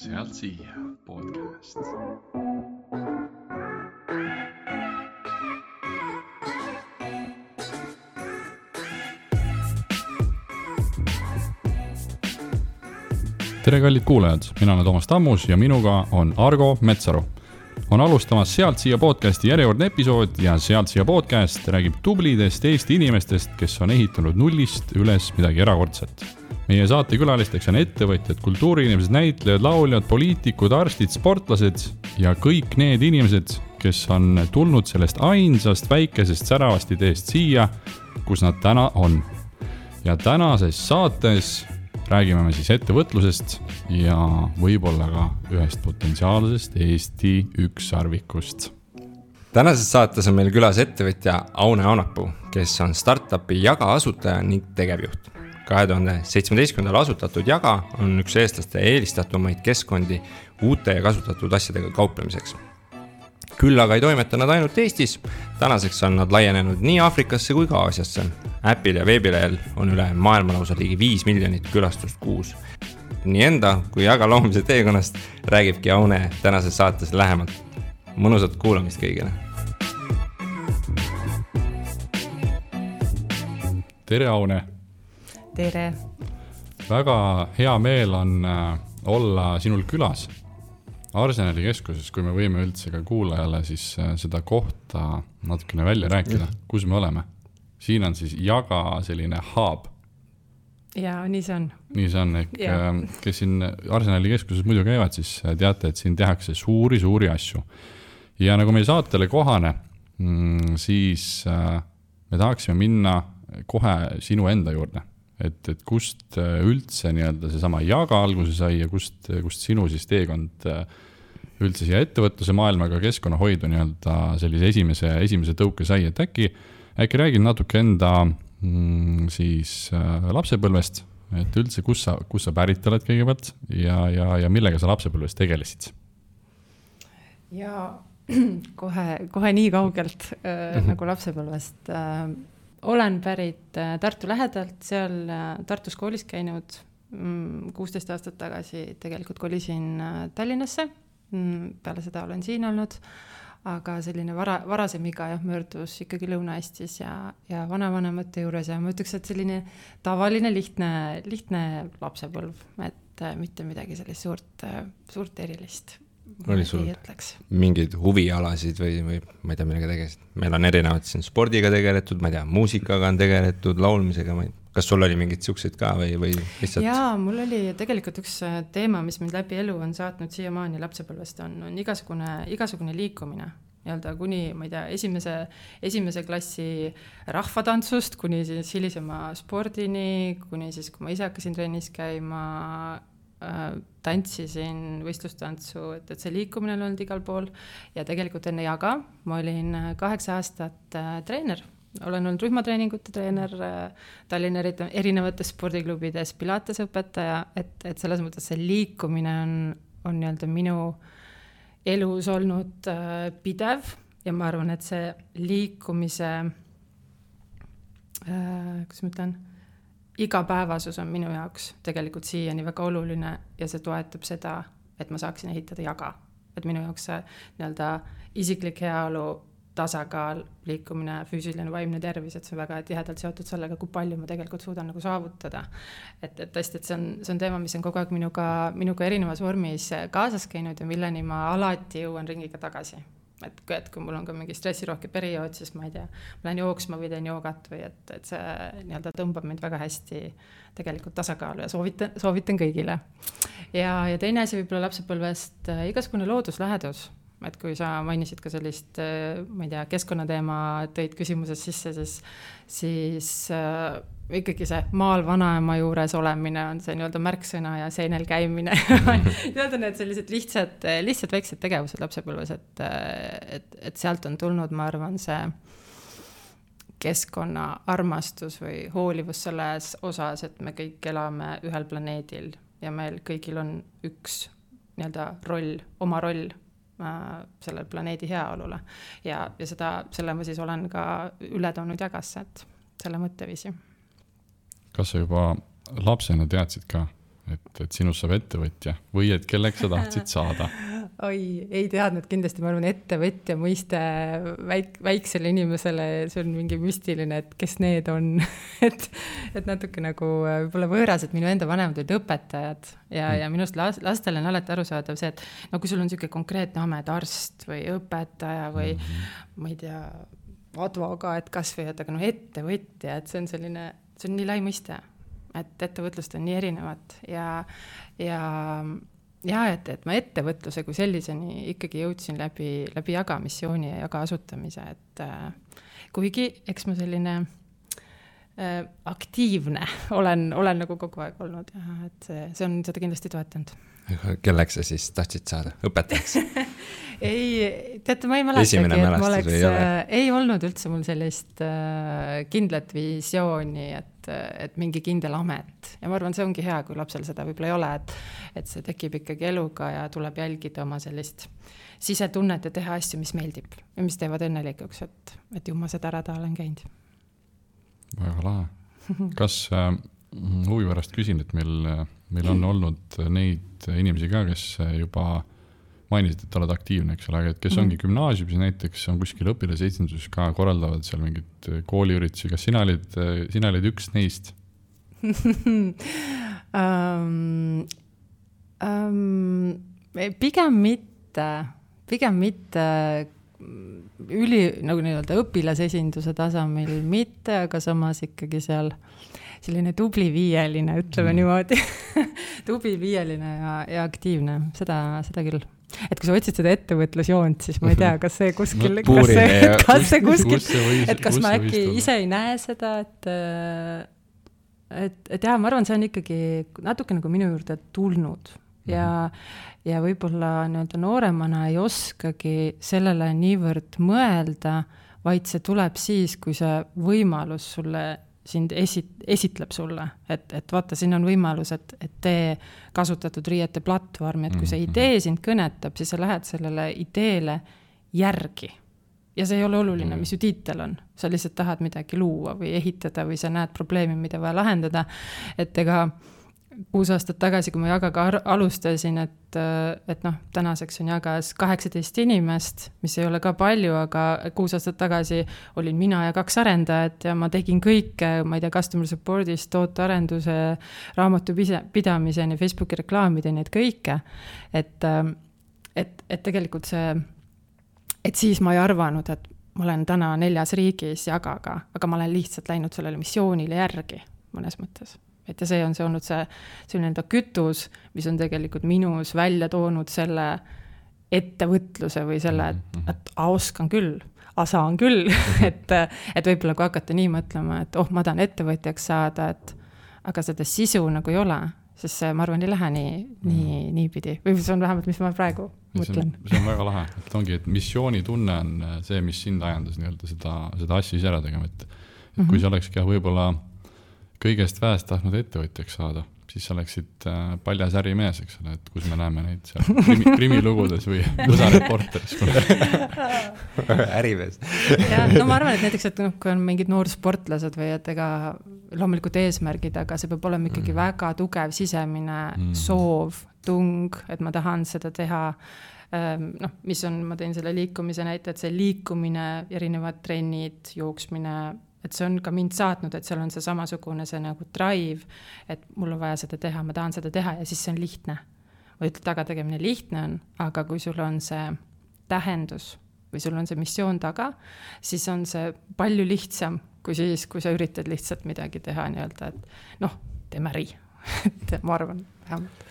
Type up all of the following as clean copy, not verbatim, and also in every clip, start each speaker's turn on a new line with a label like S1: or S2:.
S1: Sealt siia podcast. Tere kallid kuulajad, mina olen Toomas Tammus ja minuga on Argo Metsaru. On alustamas Sealt siia podcasti järjekordne episood ja Sealt siia podcast räägib tublidest Eesti inimestest, kes on ehitanud nullist üles midagi erakordset. Meie saatekülalisteks on ettevõtjad, kultuuriinimesed, näitlejad, lauljad, poliitikud, arstid, sportlased ja kõik need inimesed, kes on tulnud sellest ainsast väikesest säravast ideest siia, kus nad täna on. Ja tänases saates räägime me siis ettevõtlusest ja võib-olla ka ühest potentsiaalsest Eesti ükssarvikust.
S2: Tänases saates on meil külas ettevõtja Aune Aunapuu, kes on startupi Jaga asutaja ning tegevjuht. 2017. asutatud Jaga on üks eestlaste eelistatumaid keskkondi uute ja kasutatud asjadega kauplemiseks. Küll aga ei toimeta nad ainult Eestis, tänaseks on nad laienenud nii Aafrikasse kui ka Aasiasse. Äpil ja veebilehel on üle maailmalausa ligi 5 miljonit külastust kuus. Nii enda kui Jaga loomise teekonnast räägibki Aune tänases saates lähemalt. Mõnusat kuulamist kõigile.
S1: Tere Aune!
S3: Tere!
S1: Väga hea meel on olla sinul külas Arsenali keskuses, kui me võime üldse ka kuulajale siis seda kohta natukene välja rääkida, kus me oleme. Siin on siis Jaga selline hub.
S3: Ja, nii see on.
S1: Nii see on, kes siin Arsenali keskuses muidu käivad, siis teate, et siin tehakse suuri asju. Ja nagu meie saatele kohane, siis me tahaksime minna kohe sinu enda juurde. Et kust üldse nii-öelda seesama Jaga alguse sai ja kust sinu siis teekond üldse siia ettevõtluse maailmaga keskkonnahoidu nii-öelda sellise esimese tõuke sai, et äkki räägid natuke enda siis lapsepõlvest, et üldse kus sa pärit oled kõigepealt ja millega sa lapsepõlvest tegelesid?
S3: Ja kohe nii kaugelt nagu lapsepõlvest. Olen pärit Tartu lähedalt, seal Tartus koolis käinud 16 aastat tagasi, tegelikult kolisin Tallinnasse, peale seda olen siin olnud, aga selline varasem iga möördus ikkagi Lõuna-Eestis ja vanavanemate juures ja ma ütleks, et selline tavaline lihtne lapsepõlv, et mitte midagi sellist suurt erilist.
S2: Oli sul mingeid huvialasid või ma ei tea, millega tegelesid? Meil on erinevad siin spordiga tegeletud, ma ei tea, muusikaga on tegeletud, laulmisega. Kas sul oli mingid siuksed ka või lihtsalt?
S3: Jaa, mul oli tegelikult üks teema, mis mind läbi elu on saatnud siiamaani lapsepõlvest, on igasugune liikumine. Nii-öelda kuni, ma ei tea, esimese klassi rahvatantsust, kuni siis hilisema spordini, kuni siis, kui ma ise hakkasin trennis käima, tantsisin võistlustantsu, et see liikumine on olnud igal pool ja tegelikult enne Jaga ma olin 8 aastat treener. Olen olnud rühmatreeningute treener Tallinna erinevates spordiklubides, pilatesõpetaja, et selles mõttes see liikumine on nii-öelda minu elus olnud pidev ja ma arvan, et see liikumise kuidas ma ütlen, igapäevasus on minu jaoks tegelikult siiani väga oluline ja see toetab seda, et ma saaksin ehitada Jaga. Et minu jaoks see nii-öelda isiklik heaolu, tasakaal, liikumine, füüsiline, vaimne tervis, et see on väga tihedalt seotud sellega, kui palju ma tegelikult suudan nagu saavutada. Et tõesti, et see on teema, mis on kogu aeg minuga erinevas vormis kaasas käinud ja milleni ma alati jõuan ringiga tagasi. Et kui mul on ka mingi stressirohke periood, siis ma ei tea, ma lähen jooksma või teen joogat või et see nii-öelda tõmbab mind väga hästi tegelikult tasakaalu ja soovitan kõigile. Ja teine asi võib-olla lapsepõlvest igasugune looduslähedus. Et kui sa mainisid ka sellist, ma ei tea, keskkonnateema tõid küsimuses sisse, siis ikkagi see maal vanaema juures olemine on see nii-öelda märksõna ja seenel käimine. Need on need sellised lihtsad väiksed tegevused lapsepõlves, et sealt on tulnud, ma arvan, see keskkonna armastus või hoolivus selles osas, et me kõik elame ühel planeedil ja meil kõigil on üks nii-öelda oma roll sellel planeedi heaolule ja selle ma siis olen ka üle toonud Jagasse, et selle mõtteviisi.
S1: Kas sa juba lapsena teadsid ka, et sinust saab ettevõtja või et kelleks sa tahtsid saada?
S3: Oi, ei teadnud kindlasti, ma arvan, ettevõtja mõiste väiksele inimesele, see on mingi müstiline, et kes need on, et natuke nagu võib-olla võõras, et minu enda vanemad olid õpetajad ja minust lastele on alati arusaadav see, et no kui sul on niisugune konkreetne amet, arst või õpetaja või ma ei tea, advokaat kas või, et aga no ettevõtja, et see on selline, see on nii lai mõiste, et ettevõtlust on nii erinevat ja et ma ettevõtluse kui selliseni ikkagi jõudsin läbi jaga missiooni ja jaga asutamise, et kuigi eks ma selline aktiivne olen nagu kogu aeg olnud ja et see on seda kindlasti toetanud.
S2: Kelleks sa siis tahtsid saada? Õpetajaks?
S3: Ei, teate, ma ei mäletagi, et ma oleks, ei olnud üldse mul sellist kindlat visiooni, et mingi kindel amet. Ja ma arvan, see ongi hea, kui lapsel seda võib-olla ei ole, et see tekib ikkagi eluga ja tuleb jälgida oma sellist sisetunnet ja teha asju, mis meeldib ja mis teevad õnnelikuks, et ju ma seda rada olen käinud.
S1: Väga lahe. Kas huvi pärast küsin, et meil on olnud neid inimesi ka, kes juba mainisid, et oled aktiivne, eks ole, et kes ongi gümnaasiumis näiteks, on kuskil õpilasesinduses ka, korraldavad seal mingid kooliüritusi. Kas sina olid üks neist? Pigem mitte nagu nii-öelda õpilasesinduse tasemel mitte, aga samas ikkagi seal selline tubli viieline, ütleme niimoodi. Tubli viieline ja aktiivne, seda küll. Et kui sa otsid seda ettevõtlusjoont, siis ma ei tea, kas see kuskil, kas ma äkki ise ei näe seda, et jah, ma arvan, see on ikkagi natuke nagu minu juurde tulnud ja võib-olla nii-öelda nooremana ei oskagi sellele niivõrd mõelda, vaid see tuleb siis, kui see võimalus sulle sind esitleb sulle, et vaata, siin on võimalus, et tee kasutatud riiete platvormi, et kui see idee sind kõnetab, siis sa lähed sellele ideele järgi. Ja see ei ole oluline, mis ju tiitel on. Sa lihtsalt tahad midagi luua või ehitada või sa näed probleemi, mida vaja lahendada. Et ega 6 aastat tagasi, kui ma Jagaga alustasin, et noh, tänaseks on Jagas 18 inimest, mis ei ole ka palju, aga 6 aastat tagasi olin mina ja 2 arendajat ja ma tegin kõike, ma ei tea, customer support'ist, tootearenduse, raamatu pidamiseni, Facebooki reklaamideni, et kõike. Et tegelikult see, et siis ma ei arvanud, et ma olen täna 4 riigis Jagaga, aga ma olen lihtsalt läinud sellele missioonile järgi mõnes mõttes. Et ja see on see olnud see enda kütus, mis on tegelikult minus välja toonud selle ettevõtluse või selle, et oskan küll, saan küll, et võib-olla kui hakata nii mõtlema, et ma tahan ettevõtjaks saada, aga seda sisu nagu ei ole, sest see, ma arvan, ei lähe nii pidi. Või see on vähemalt, mis ma praegu mõtlen. See on väga lahe. Et ongi, et missioonitunne on see, mis sind ajendas nii-öelda seda asja ise ära tegema. Et kui see olekski võib-olla kõigest väest tahtnud ettevõtjaks saada, siis sa oleksid paljas ärimees, eks ole, et kus me näeme neid seal krimilugudes või USA reporteris.
S2: Ärimees.
S3: Ja, no ma arvan, et näiteks, et kui on mingid noorsportlased või et ega loomulikult eesmärgid, aga see peab olema ikkagi väga tugev sisemine soov, tung, et ma tahan seda teha. Mis on, ma teen selle liikumise näite, et see liikumine, erinevad trennid, jooksmine, et see on ka mind saatnud, et seal on see samasugune see nagu drive, et mul on vaja seda teha, ma tahan seda teha ja siis see on lihtne. Või taga tegemine lihtne on, aga kui sul on see tähendus või sul on see missioon taga, siis on see palju lihtsam kui siis, kui sa üritad lihtsalt midagi teha nii-öelda, et teeme äri. Et ma arvan, vähemalt.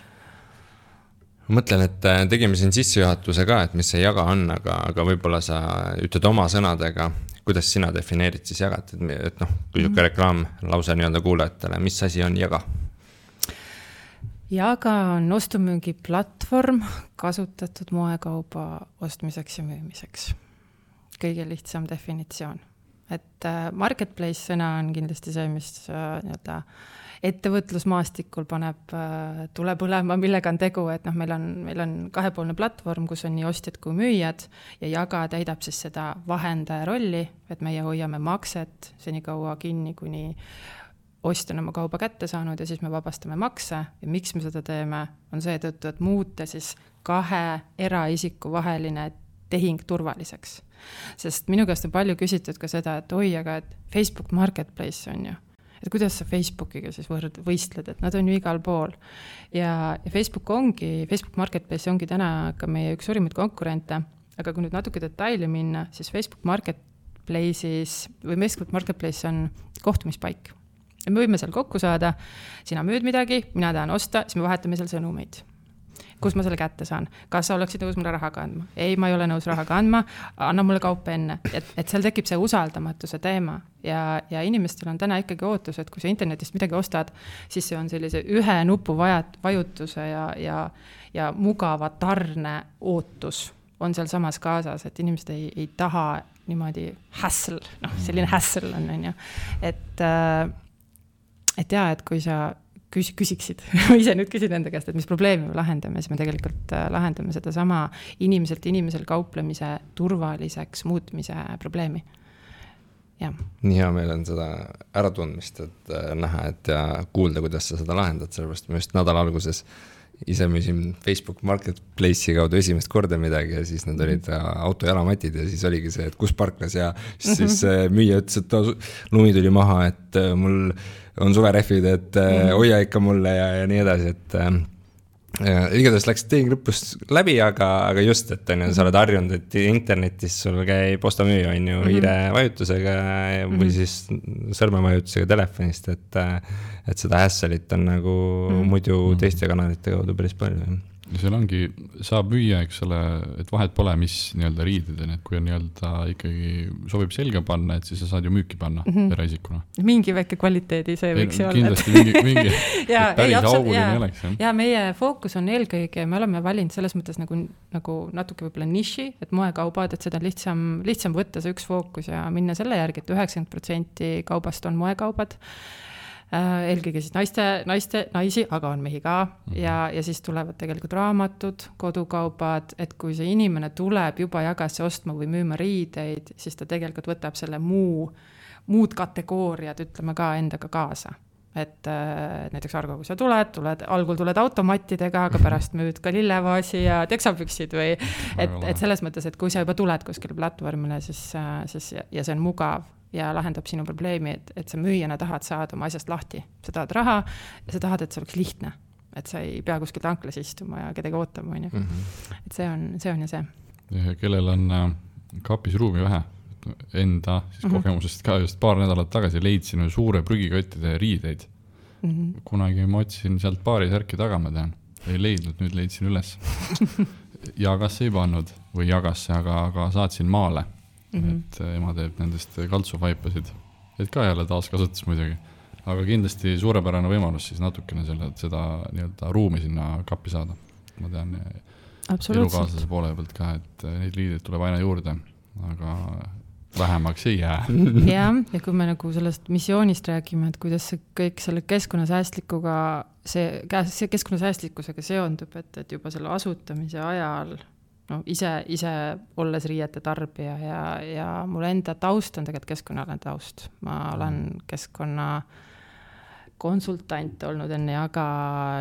S2: Ma mõtlen, et tegime siin sissejuhatuse ka, et mis see Jaga on, aga võib-olla sa ütled oma sõnadega, kuidas sina defineerid siis Jagat, et kui siuke reklaam lause nii-öelda kuulajatele, mis asi on Jaga?
S3: Jaga on ostumüügi platvorm kasutatud moekauba ostmiseks ja müümiseks. Kõige lihtsam definitsioon. Et marketplace sõna on kindlasti see, mis nii-öelda ettevõtlusmaastikul paneb tule põlema, millega on tegu, et meil on 2-poolne platvorm, kus on nii ostjad kui müüjad ja Jaga täidab siis seda vahendaja rolli, et meie hoiame makset senikaua kinni, kuni ostja on oma kauba kätte saanud ja siis me vabastame makse ja miks me seda teeme, on see tõttu, et muuta siis 2 eraisiku vaheline tehing turvaliseks. Sest minu käest on palju küsitud ka seda, et oi, aga et Facebook Marketplace on ju. Et kuidas sa Facebookiga siis võistled, et nad on ju igal pool. Ja Facebook Marketplace ongi täna ka meie üks suurimaid konkurente, aga kui nüüd natuke detaili minna, siis Facebook Marketplace on kohtumispaik. Ja me võime seal kokku saada, sina müüd midagi, mina tahan osta, siis me vahetame seal sõnumeid. Kus ma selle kätte saan? Kas sa oleksid nõus mulle raha kandma? Ei, ma ei ole nõus raha kandma, anna mulle kaupa enne. Et seal tekib see usaldamatuse teema ja inimestel on täna ikkagi ootus, et kui sa internetist midagi ostad, siis see on sellise ühe nupu vajutuse ja mugava tarne ootus on seal samas kaasas, et inimesed ei taha niimoodi hassle, selline hassle on ju. Et kui sa küsiksid, ise nüüd küsin enda käest, et mis probleemi me lahendame, siis me tegelikult lahendame seda sama inimeselt inimesel kauplemise turvaliseks muutmise probleemi. Ja.
S2: Nii hea meil on seda äratundmist, et näha, et ja kuulda, kuidas sa seda lahendad, sellepärast ma just nädala alguses ise müüsin Facebook Marketplace'i kaudu esimest korda midagi ja siis need olid autojalamatid ja siis oligi see, et kus parklas ja siis müüja ütles, et lumi tuli maha, et mul on suverehvid, et hoia ikka mulle ja nii edasi, et igatahes läks tehing lõpus läbi, aga just, et sa oled harjunud, et internetis sul käib postamüüja on ju hiire vajutusega või siis sõrmemajutusega telefonist, et seda hässelit on nagu muidu teiste kanalite kaudu päris palju.
S1: Ja seal ongi, saab müüa, eks ole, et vahet pole, mis nii-öelda riided on, et kui on nii-öelda ikkagi sobib selga panna, et siis sa saad ju müüki panna eraisikuna.
S3: Mingi väike kvaliteedi see võiks olla.
S1: Kindlasti mingi päris auguline oleks.
S3: Ja meie fookus on eelkõige, me oleme valinud selles mõttes nagu natuke võib-olla niši, et moekaubad, et seda lihtsam võtta see üks fookus ja minna selle järgi, et 90% kaubast on moekaubad. Eelkõige siis naisi, aga on mehi ka ja siis tulevad tegelikult raamatud, kodukaubad, et kui see inimene tuleb juba jagasse ostma või müüma riideid, siis ta tegelikult võtab selle muud kategooriad, ütleme ka endaga kaasa. Et näiteks Argo, kui sa algul tuled automattidega, aga pärast müüd ka lillevaasi ja teksapüksid või et selles mõttes, et kui sa juba tuled kuskile platvormile, siis ja see on mugav ja lahendab sinu probleemi, et sa müüjana tahad saada oma asjast lahti. Sa tahad raha ja sa tahad, et see oleks lihtne. Et sa ei pea kuskil tanklas istuma ja kedagi ootama. Et see on ja see.
S1: Ja kellel on kapis ruumi vähe, enda siis kogemusest ka just paar nädalat tagasi leidsin suure prügikottide riideid. Kunagi ma otsin sealt paari särki taga, ma tean. Ei leidnud, nüüd leidsin üles. Jagasse ei pannud või jagasse, aga saatsin maale. Et ema teeb nendest kaltsuvaipasid, et ka jälle taaskasutus muidugi, aga kindlasti suurepärane võimalus siis natukene seda nii-öelda ruumi sinna kappi saada. Ma tean elukaaslase poole pealt ka, et neid liideid tuleb aina juurde, aga vähemaks ei jää.
S3: Ja kui me nagu sellest missioonist räägime, et kuidas see kõik selle keskkonnasäästlikkusega seondub, et juba selle asutamise ajal ise olles riiete tarbija ja mul enda taust on tegelikult keskkonnaalane taust. Ma olen keskkonna konsultant olnud enne Jaga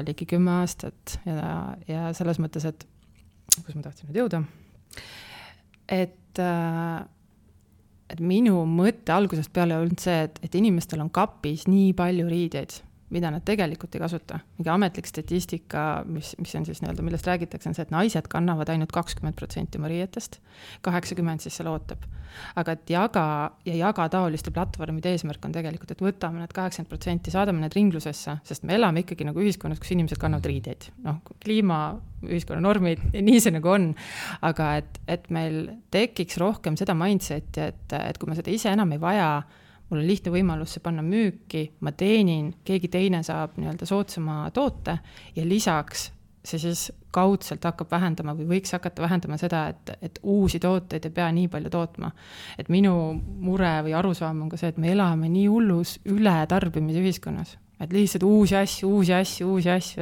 S3: ligi 10 aastat ja selles mõttes, et kus ma tahtsin nüüd jõuda, et minu mõte algusest peale olnud see, et inimestel on kapis nii palju riideid, mida nad tegelikult ei kasuta. Mingi ametlik statistika, mis on siis nii-öelda, millest räägitakse, on see, et naised kannavad ainult 20% oma riietest, 80% siis seal ootab. Aga et jaga taoliste platvormide eesmärk on tegelikult, et võtame need 80%, saadame need ringlusesse, sest me elame ikkagi nagu ühiskonnas, kus inimesed kannavad riideid. Kliima, ühiskonna normid, nii see nagu on. Aga et meil tekiks rohkem seda mindseti, et kui me seda ise enam ei vaja, mul on lihtne võimalus see panna müüki, ma teenin, keegi teine saab nii-öelda soodsama toote ja lisaks see siis kaudselt hakkab vähendama või võiks hakata vähendama seda, et uusi tooteid ei pea nii palju tootma. Et minu mure või arusaam on ka see, et me elame nii hullus üle tarbimise ühiskonnas. Et lihtsalt uusi asju,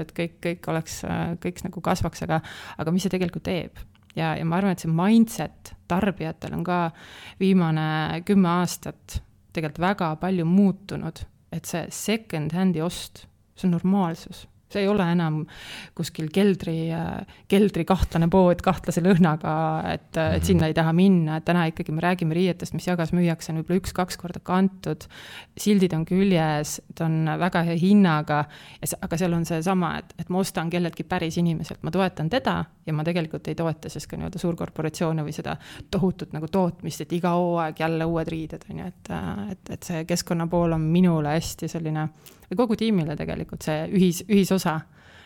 S3: et kõik nagu kasvaks, aga mis see tegelikult teeb? Ja ma arvan, et see mindset tarbijatel on ka viimane 10 aastat tegelikult väga palju muutunud et see second hand'i ost, see on normaalsus. See ei ole enam kuskil keldri kahtlane pood kahtlase lõhnaga, et sinna ei taha minna, et täna ikkagi me räägime riietest, mis jagas müüakse on võib-olla 1-2 korda kantud, sildid on küljes, ta on väga hea hinnaga, aga seal on see sama, et ma ostan kelleltki päris inimeselt, ma toetan teda ja ma tegelikult ei toeta siis ka nii-öelda suurkorporatsioone või seda tohutut nagu tootmist, et iga hooaeg jälle uued riided, et see keskkonna pool on minule hästi selline või kogu tiimile tegelikult see ühisosa,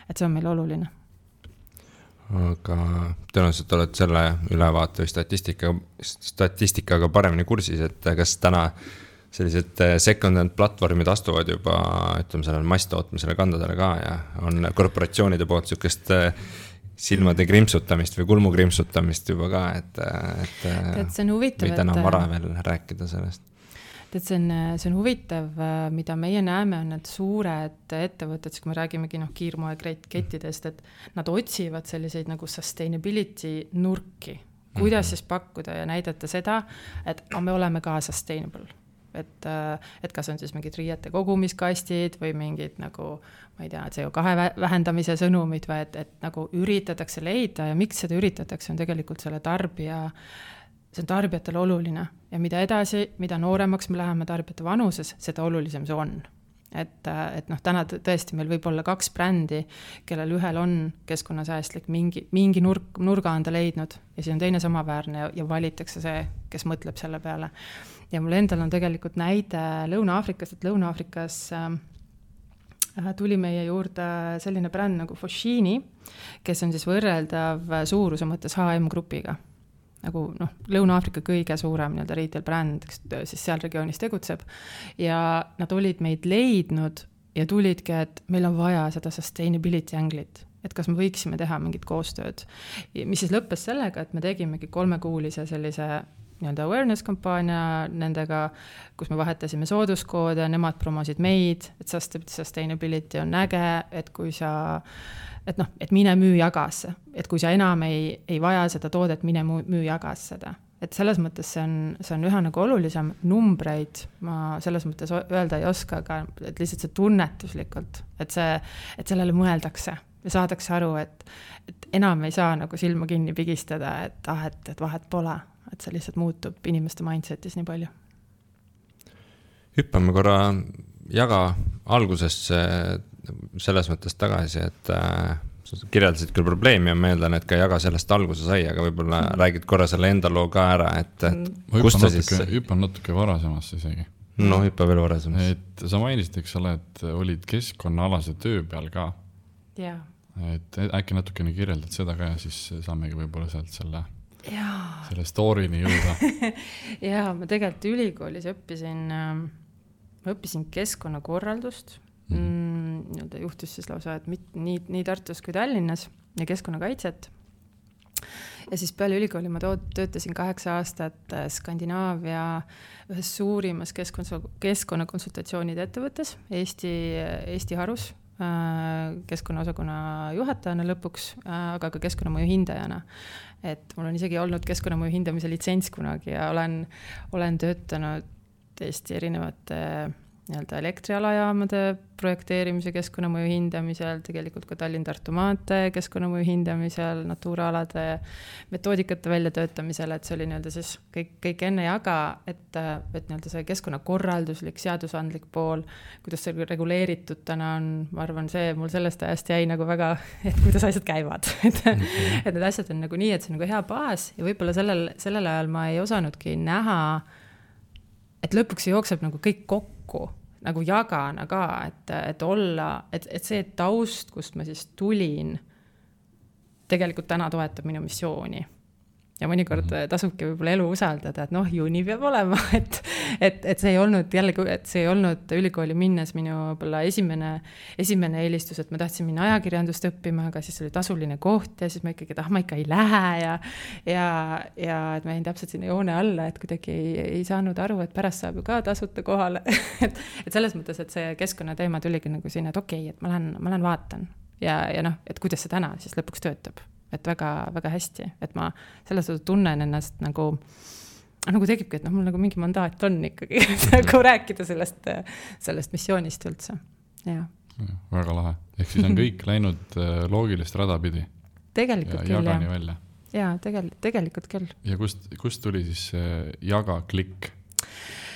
S3: et see on meil oluline.
S2: Aga tõenäoliselt oled selle ülevaate või statistikaga paremini kursis, et kas täna sellised second-hand platvormid astuvad juba, ütleme sellele masstootmisele kandadele ka ja on korporatsioonide poolt niisugust silmade krimpsutamist või kulmu krimpsutamist juba ka, et
S3: see on huvitav,
S2: või täna vara veel rääkida sellest.
S3: Et see on huvitav, mida meie näeme on need suured ettevõtted, kui me räägimegi kiirmoe kettidest, et nad otsivad selliseid nagu sustainability nurki, kuidas siis pakkuda ja näidata seda, et me oleme ka sustainable. Et kas on siis mingid riiete kogumiskastid või mingid nagu, ma ei tea, CO2 vähendamise sõnumid või et nagu üritatakse leida ja miks seda üritatakse on tegelikult selle see on tarbijatele oluline ja mida edasi, mida nooremaks me läheme tarbijate vanuses, seda olulisem see on. Et täna tõesti meil võib olla 2 brändi, kellel ühel on keskkonnasäästlik, mingi nurga on ta leidnud ja siis on teine samaväärne ja valitakse see, kes mõtleb selle peale. Ja mul endal on tegelikult näide Lõuna-Aafrikast, et Lõuna-Aafrikas tuli meie juurde selline bränd nagu Foschini, kes on siis võrreldav suuruse mõttes H&M grupiga. Nagu Lõuna-Aafrika kõige suurem retail bränd, kes siis seal regioonis tegutseb ja nad olid meid leidnud ja tulidki, et meil on vaja seda sustainability anglit, et kas me võiksime teha mingit koostööd, mis siis lõppes sellega, et me tegimegi 3-kuulise sellise awareness kampaania nendega, kus me vahetasime sooduskoode, nemad promosid meid, et sustainability on äge, et kui sa et mine müü jagasse, et kui sa enam ei vaja seda toodet, mine müü jagas seda. Et selles mõttes see on üha nagu olulisem numbreid, ma selles mõttes öelda ei oska, aga et lihtsalt see tunnetuslikult, et sellele mõeldakse ja saadakse aru, et enam ei saa nagu silma kinni pigistada, et vahet pole, et see lihtsalt muutub inimeste mindsetis nii palju.
S2: Hüppame korra jaga algusesse selles mõttes tagasi, et kirjeldasid küll probleemi ja ma eeldan, et ka jaga sellest alguse sai, aga võib-olla räägid korra selle enda loo ka ära, et
S1: hüppan natuke varasemasse isegi.
S2: No hüppa veel varasemasse.
S1: Et sa mainisid, eks ole, et olid keskkonnaalase töö peal ka.
S3: Ja.
S1: Et äkki natukene kirjeldad seda ka ja siis saamegi võib-olla sealt selle stoorini jõuda.
S3: Ja, ma tegelikult ülikoolis õppisin keskkonnakorraldust. Juhtus siis lausa, et nii Tartus kui Tallinnas ja keskkonnakaitset. Ja siis peale ülikooli ma töötasin 8 aastat Skandinaavia ühes suurimas keskkonnakonsultatsioonide ettevõttes Eesti Harus keskkonnaosakonna juhatajana lõpuks, aga ka keskkonnamõju hindajana. Et mul on isegi olnud keskkonnamõju hindamise litsents kunagi ja olen töötanud Eesti erinevate elektrialajaamade projekteerimise keskkonnamõju hindamisel, tegelikult ka Tallinn-Tartu maantee keskkonnamõju hindamisel, Natura-alade metoodikate väljatöötamisel, et see oli siis kõik enne jaga, et see keskkonnakorralduslik, seadusandlik pool, kuidas see reguleeritud täna on, ma arvan, see mul sellest ajast jäi nagu väga, et kuidas asjad käivad. Et need asjad on nagu nii, et see on nagu hea baas ja võib-olla sellel ajal ma ei osanudki näha, et lõpuks see jookseb nagu kõik kokku, nagu jagana ka, et olla, et see taust, kust ma siis tulin, tegelikult täna toetab minu missiooni. Ja mõnikord tasubki võib-olla elu usaldada, et ju nii peab olema, et see ei olnud jällegi, et see ei olnud ülikooli minnes minu võib-olla esimene eelistus, et ma tahtsin minna ajakirjandust õppima, aga siis oli tasuline koht ja siis ma ikkagi, ma ikka ei lähe ja et ma jäin täpselt sinna joone alla, et kuidagi ei saanud aru, et pärast saab ju ka tasuta kohale. et selles mõttes, et see keskkonnateema tuligi nagu sinna, et okei, et ma lähen vaatan ja et kuidas see täna siis lõpuks töötab. Et väga, väga hästi, et ma selles tunnen ennast nagu nagu tekibki, et mul nagu mingi mandaat on ikkagi nagu rääkida sellest missioonist üldse, jah.
S1: Väga lahe, ehk siis on kõik läinud loogilist rada pidi.
S3: Tegelikult
S1: küll, jagani välja.
S3: Jaa, tegelikult küll.
S1: Ja kust tuli siis jaga klikk?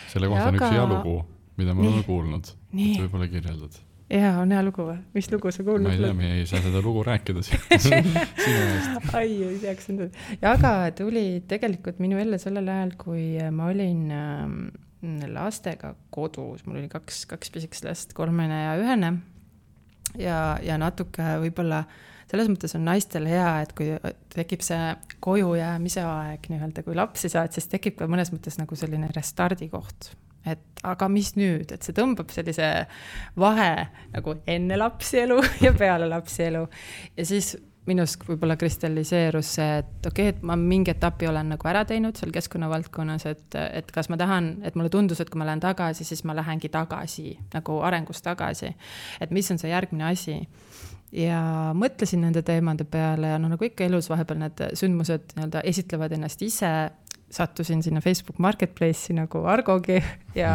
S1: Selle kohta on üks hea lugu, mida ma olen kuulnud. Võib-olla kirjeldad.
S3: Jaa, on hea lugu või? Mis lugu sa kuulnud?
S1: Ma ei tea, me ei saa seda lugu rääkida sinu eest.
S3: Ai, ei teaks endal. Jaga tuli tegelikult minu ellu sellel ajal, kui ma olin lastega kodus. Mul oli kaks pisikest last, 3 ja 1. Ja natuke võib-olla selles mõttes on naistel hea, et kui tekib see koju jäämise aeg, kui lapsi saad, siis tekib ka mõnes mõttes nagu selline restardi koht. Et aga mis nüüd, et see tõmbab sellise vahe nagu enne lapsi elu ja peale lapsi elu. Ja siis minust võib-olla kristalliseerus see, et okei, et ma mingi etapi olen nagu ära teinud seal keskkonnavaldkonnas, et kas ma tahan, et mulle tundus, et kui ma lähen tagasi, siis ma lähengi tagasi, nagu arengus tagasi. Et mis on see järgmine asi? Ja mõtlesin nende teemade peale ja nagu ikka elus vahepeal need sündmused esitlevad ennast ise. Sattusin sinna Facebook Marketplace'i nagu Argogi ja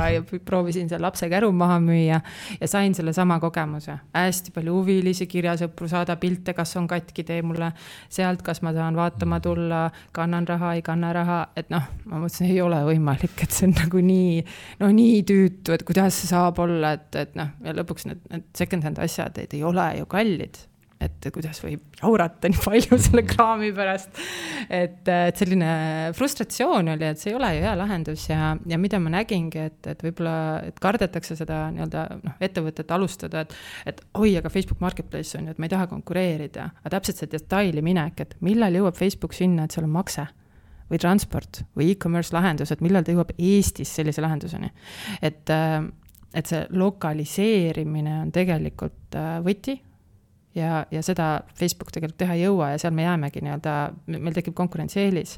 S3: proovisin seal lapse käru maha müüa ja sain selle sama kogemuse. Hästi palju huvilisi, kirjasõpru, saada pilte, kas on katki, tee mulle sealt, kas ma saan vaatama tulla, kannan raha, ei kanna raha, et ma mõtlesin, ei ole võimalik, et see on nagu nii tüütu, et kuidas see saab olla, et ja lõpuks need second hand asjad, et ei ole ju kallid. Et kuidas võib jaurata nii palju selle kraami pärast. Et selline frustratsioon oli, et see ei ole ju hea lahendus ja mida ma nägingi, et võib-olla et kardetakse seda ettevõtet alustada, et oi, aga Facebook Marketplace on ju, et ma ei taha konkureerida. Aga täpselt see detaili minek, et millal jõuab Facebook sinna, et seal on makse või transport või e-commerce lahendus, et millal ta jõuab Eestis sellise lahenduseni. Et see lokaliseerimine on tegelikult võti. Ja seda Facebook tegelikult teha ei jõua ja seal me jäämegi meil tekib konkurentsieelis.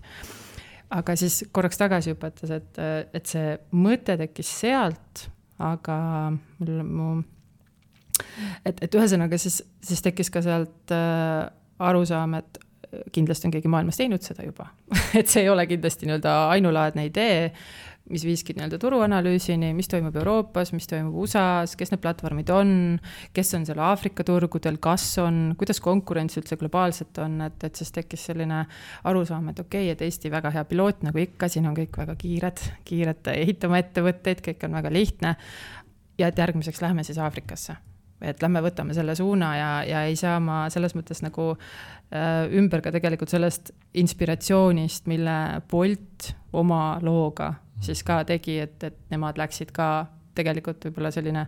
S3: Aga siis korraks tagasi õpetas, et see mõte tekkis sealt, aga et ühesõnaga siis tekkis ka sealt arusaam, et kindlasti on keegi maailmas teinud seda juba. Et see ei ole kindlasti ainulaadne idee, mis viiski turuanalüüsini, mis toimub Euroopas, mis toimub USAs, kes need platvormid on, kes on seal Aafrika turgudel, kas on, kuidas konkurents üldse globaalselt on, et siis tekkis selline arusaam, et okei, et Eesti väga hea piloot, nagu ikka, siin on kõik väga kiired ehitama ettevõtteid, kõik on väga lihtne ja et järgmiseks lähme siis Aafrikasse. Et lähme võtame selle suuna ja ei saa ma selles mõttes nagu ümber ka tegelikult sellest inspiratsioonist, mille Bolt oma looga siis ka tegi, et nemad läksid ka tegelikult võib-olla selline,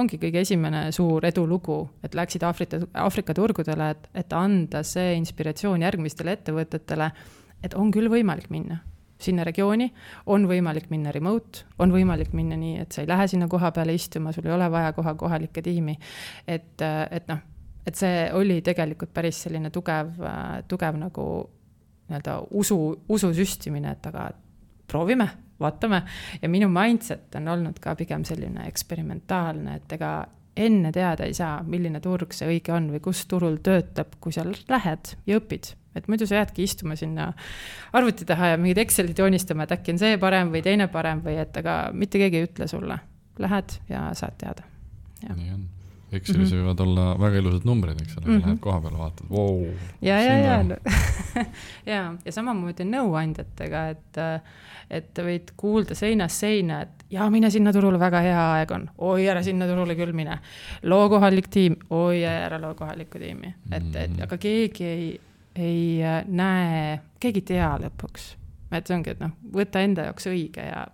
S3: ongi kõige esimene suur edulugu, et läksid Aafrika turgudele, et anda see inspiratsioon järgmistele ettevõtetele, et on küll võimalik minna sinna regiooni, on võimalik minna remote, on võimalik minna nii, et sa ei lähe sinna koha peale istuma, sul ei ole vaja kohalikke tiimi, et see oli tegelikult päris selline tugev nagu usu süstimine, et aga proovime, vaatame ja minu mindset on olnud ka pigem selline eksperimentaalne, et ega enne teada ei saa, milline turg see õige on või kus turul töötab, kui seal lähed ja õpid. Et muidu sa jäädki istuma sinna arvuti taha ja mingid Excelid joonistama, et äkki on see parem või teine parem või et aga mitte keegi ei ütle sulle. Lähed ja saad teada. Ja.
S1: Nii on. Excelis võivad olla väga ilusad numbrid, eks ole, lähed koha peale vaatad, wow.
S3: Ja samamoodi nõuandjatega, et võid kuulda seinast seina, et mine sinna turule, väga hea aeg on, oi ära sinna turule küll mine, loo kohalik tiim, oi ära loo kohalikku tiimi, aga keegi ei näe, keegi tea lõpuks, et see ongi, et võta enda jaoks õige ja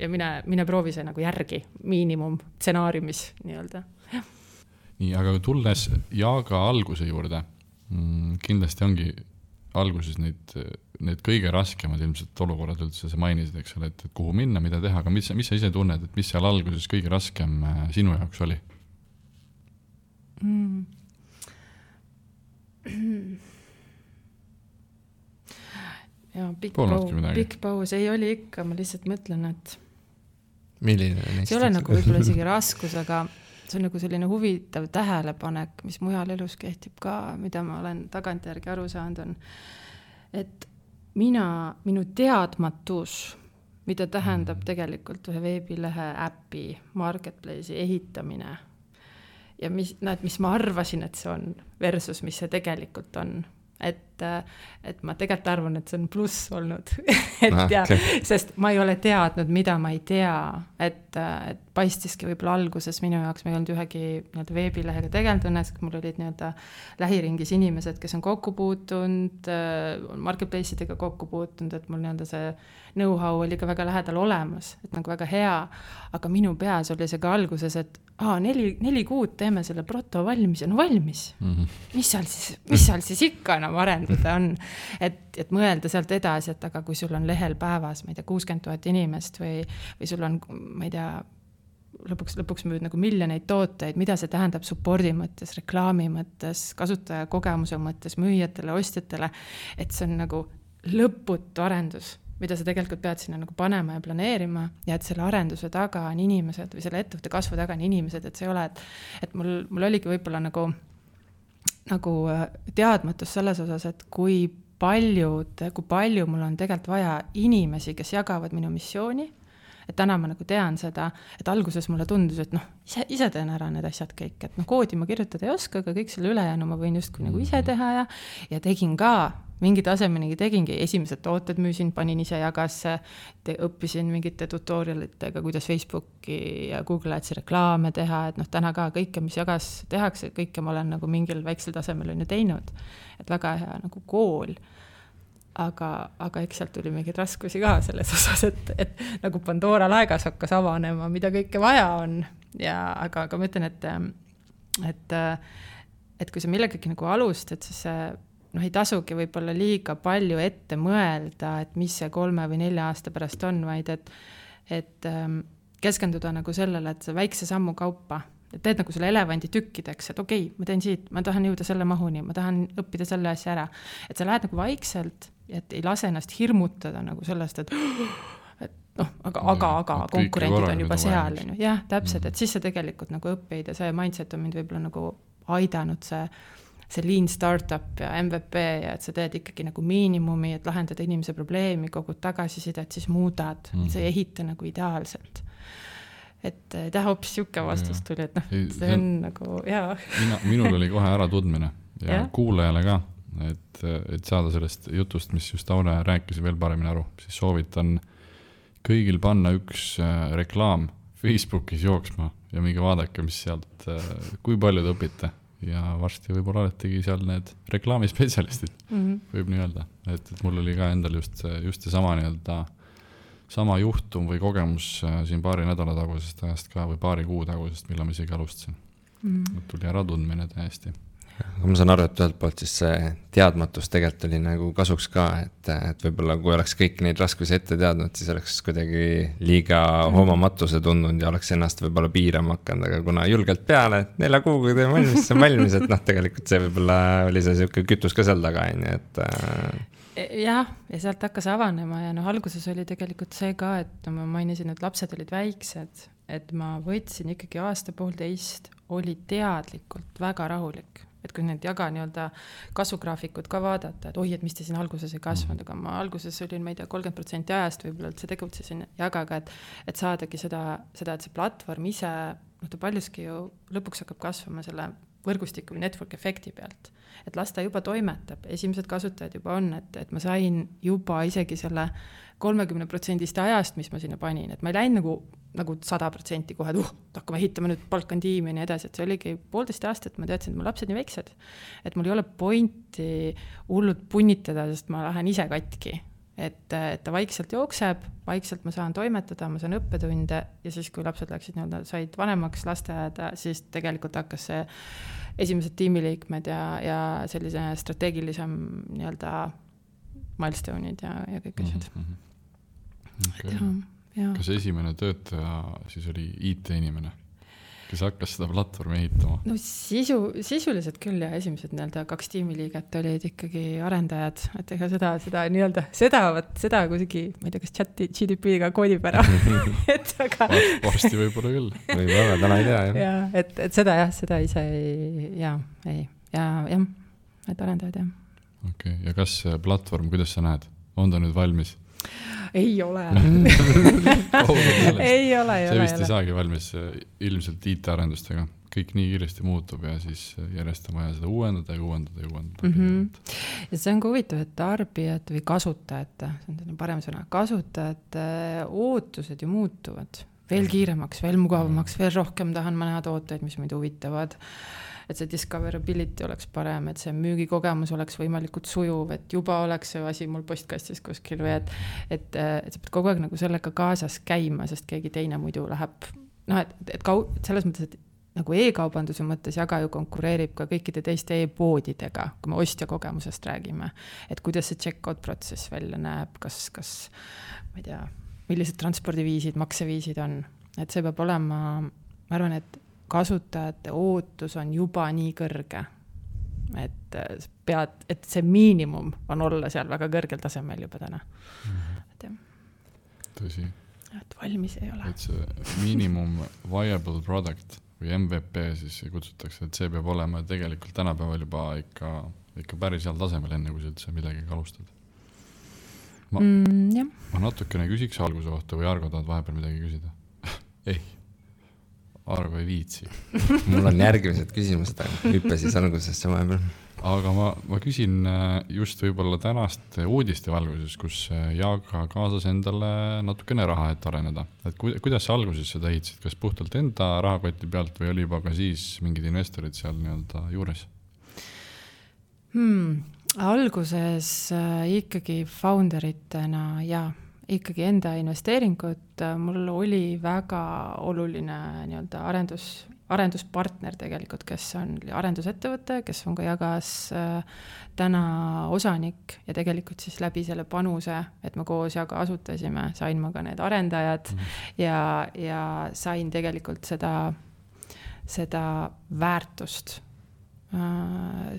S3: mine proovi see nagu järgi miinimum stsenaariumis nii-öelda.
S1: Nii, aga tulles Jaga alguse juurde, kindlasti ongi alguses need kõige raskemad ilmselt olukorrad üldse, sa mainisid, eks ole, et kuhu minna, mida teha, aga mis sa ise tunned, et mis seal alguses kõige raskem sinu jaoks oli?
S3: Ja pikk paus ei oli ikka, ma lihtsalt mõtlen, et
S2: milline
S3: see ei ole nagu võib-olla isegi raskus, aga see on nagu selline huvitav tähelepanek, mis mujal elus kehtib ka, mida ma olen tagantjärgi aru saanud on, et minu teadmatus mida tähendab tegelikult ühe veebilehe äpi marketplace'i ehitamine ja mis ma arvasin, et see on versus, mis see tegelikult on. Et ma tegelikult arvan, et see on pluss olnud. Sest ma ei ole teadnud, mida ma ei tea. Et paistiski võib-olla alguses minu jaoks, ma ei olnud ühegi veebilehega tegelenud õnnes, mul olid lähiringis inimesed, kes on kokku puutunud, marketplace'idega kokku puutunud, et mul see know-how oli ka väga lähedal olemas, et nagu väga hea, aga minu peas oli see ka alguses, et 4 kuud teeme selle proto valmis ja valmis. Mis seal siis ikka enam arendada on? Et mõelda sealt edasi, et aga kui sul on lehel päevas, ma ei tea, 60 000 inimest või sul on, ma ei tea, lõpuks müüd nagu miljoneid tooteid, mida see tähendab supporti mõttes, reklaami mõttes, kasutaja kogemuse mõttes, müüjatele, ostjatele, et see on nagu lõputu arendus, mida sa tegelikult pead sinna nagu panema ja planeerima ja et selle arenduse taga on inimesed või selle ettevõtte kasvu taga on inimesed, et see ei ole, et mul oligi võib-olla nagu teadmatus selles osas, et kui palju mul on tegelikult vaja inimesi, kes jagavad minu missiooni, et täna ma nagu tean seda, et alguses mulle tundus, et ise teen ära need asjad kõik, et koodi ma kirjutada ei oska, aga kõik selle ülejäänu ma võin justkui nagu ise teha ja tegin ka mingi tasemenigi tegingi, esimesed tooted müüsin, panin ise jagasse, õppisin mingite tutorialitega, kuidas Facebooki ja Google Adsi reklaame teha, et täna ka kõike, mis jagas tehakse, kõike ma olen nagu mingil väiksel tasemel on ju teinud, et väga hea nagu kool. Aga eks sealt tuli mingeid raskusi ka selles osas, et nagu Pandora laegas hakkas avanema, mida kõike vaja on. Aga ma ütlen, et kui sa millegagi nagu alustad, siis ei tasugi võib-olla liiga palju ette mõelda, et mis see 3 või 4 aasta pärast on, vaid et keskenduda nagu sellele, et see väikse sammu kaupa, et teed nagu selle elevandi tükkideks, et okei, ma teen siit, ma tahan jõuda selle mahuni, ma tahan õppida selle asja ära. Et sa lähed nagu vaikselt, et ei lase ennast hirmutada nagu sellest, et aga konkurendid on juba seal. Jah, täpselt, et siis sa tegelikult nagu õppeid ja see mindset on mind võib-olla nagu aidanud see lean startup ja MVP ja et sa teed ikkagi nagu miinimumi, et lahendada inimese probleemi, kogud tagasisidet, siis muudad, sa ei ehita nagu ideaalselt. Et hoopis siuke vastus tuli, et see on nagu, jaa.
S1: Minul oli kohe ära tundmine ja kuulajale ka, et saada sellest jutust, mis just Aune rääkis veel paremini aru, siis soovitan kõigil panna üks reklaam Facebookis jooksma ja mingi vaadake, mis sealt, kui palju te õpite ja varsti võib-olla oletegi seal need reklaamispetsialistid, võib nii öelda, et mul oli ka endal just see sama juhtum või kogemus siin paari nädala tagusest ajast ka või paari kuu tagusest, millal ma isegi alustasin. Tuli ära tundmine täiesti.
S2: Aga ma saan aru, et ühelt poolt siis see teadmatus tegelikult oli nagu kasuks ka, et võib-olla kui oleks kõik neid raskusi ette teadnud, siis oleks kuidagi liiga hoomamatus tundunud ja oleks ennast võib-olla piirama hakanud, aga kuna julgelt peale, et 4 kuuga teeme valmis, see on valmis, et tegelikult see võib-olla oli see siuke kütus ka seal taga, et
S3: jah, ja sealt hakkas avanema ja alguses oli tegelikult see ka, et ma mainisin, et lapsed olid väiksed, et ma võtsin ikkagi 1.5 oli teadlikult väga rahulik, et kui need jaga kasvugraafikud ka vaadata, et et mis te siin alguses ei kasvanud, aga ma alguses olin, ma ei tea, 30% ajast võib-olla üldse tegutsesin jagaga, et saadagi seda, et see platvorm ise, ta paljuski ju lõpuks hakkab kasvama selle võrgustiku või network efekti pealt, et las ta juba toimetab, esimesed kasutajad juba on, et ma sain juba isegi selle 30% ajast, mis ma sinna panin, et ma ei läinud nagu 100% kohe, et hakkame ehitama nüüd palkan tiimi ja nii edasi, et see oligi 1,5 aastat, ma teadsin, et mu lapsed nii väiksed, et mul ei ole pointi hullult punnitada, sest ma lähen ise katki, et ta vaikselt jookseb, vaikselt ma saan toimetada, ma saan õppetunde ja siis, kui lapsed läksid said vanemaks lasteaeda, siis tegelikult hakkas see esimesed tiimiliikmed ja sellise strateegilisem milestone'id ja kõik asjad.
S1: Kas esimene töötaja siis oli IT-inimene, kes hakkas seda platvormi ehitama?
S3: No sisuliselt küll ja esimesed 2 tiimiliiget olid ikkagi arendajad, et ega seda kusigi, ma ei tea, kas GDP-ga koodib ära.
S1: Varsti võib-olla küll.
S2: Võib-olla, täna ei tea.
S3: Ja, et seda ise et arendajad, jah.
S1: Okei, ja kas platvorm, kuidas sa näed? On ta nüüd valmis?
S3: ei ole.
S1: ei
S3: ole.
S1: See vist ei saagi valmis ilmselt IT-arendustega. Kõik nii kiiresti muutub ja siis järjest on vaja seda uuendada. Ja
S3: see on ka huvitav, et tarbijad või kasutajate, see on parem sõna, kasutajate ootused ju muutuvad veel kiiremaks, veel mugavamaks, veel rohkem tahan ma näha tooteid, mis mind huvitavad. Et see discoverability oleks parem, et see müügikogemus oleks võimalikult sujuv, et juba oleks see asi mul postkastis kuskil või et sa pead kogu aeg nagu sellega kaasas käima, sest keegi teine muidu läheb, et selles mõttes, et nagu e-kaubanduse mõttes Jaga ju konkureerib ka kõikide teiste e-poodidega, kui me ostja kogemusest räägime, et kuidas see check-out protsess välja näeb, kas ma ei tea, millised transpordiviisid, makseviisid on, et see peab olema, ma arvan, et kasutajate ootus on juba nii kõrge, et see miinimum on olla seal väga kõrgel tasemel juba täna.
S1: Tõsi.
S3: Et valmis ei ole.
S1: Et see minimum viable product või MVP siis kutsutakse, et see peab olema tegelikult tänapäeval juba ikka päris heal tasemel enne, kui sa üldse midagi alustad. Ma natukene küsiks alguse kohta või Argo tahad vahepeal midagi küsida? Ei. Argo ei viitsi.
S2: Mul on järgmised küsimused, hüppe siis algusesse vahepeal.
S1: Aga ma küsin just võib-olla tänast uudiste valguses, kus Jaga kaasas endale natukene raha, et areneda. Et kuidas sa alguses seda ehitasid? Kas puhtalt enda rahakoti pealt või oli juba ka siis mingid investorid seal nii-öelda juures?
S3: Alguses ikkagi founderitena ja ikkagi enda investeeringut, mul oli väga oluline nii-öelda arenduspartner tegelikult, kes on arendusettevõte, kes on ka Jagas täna osanik ja tegelikult siis läbi selle panuse, et me koos Jaga asutasime, sain ma ka need arendajad ja sain tegelikult seda väärtust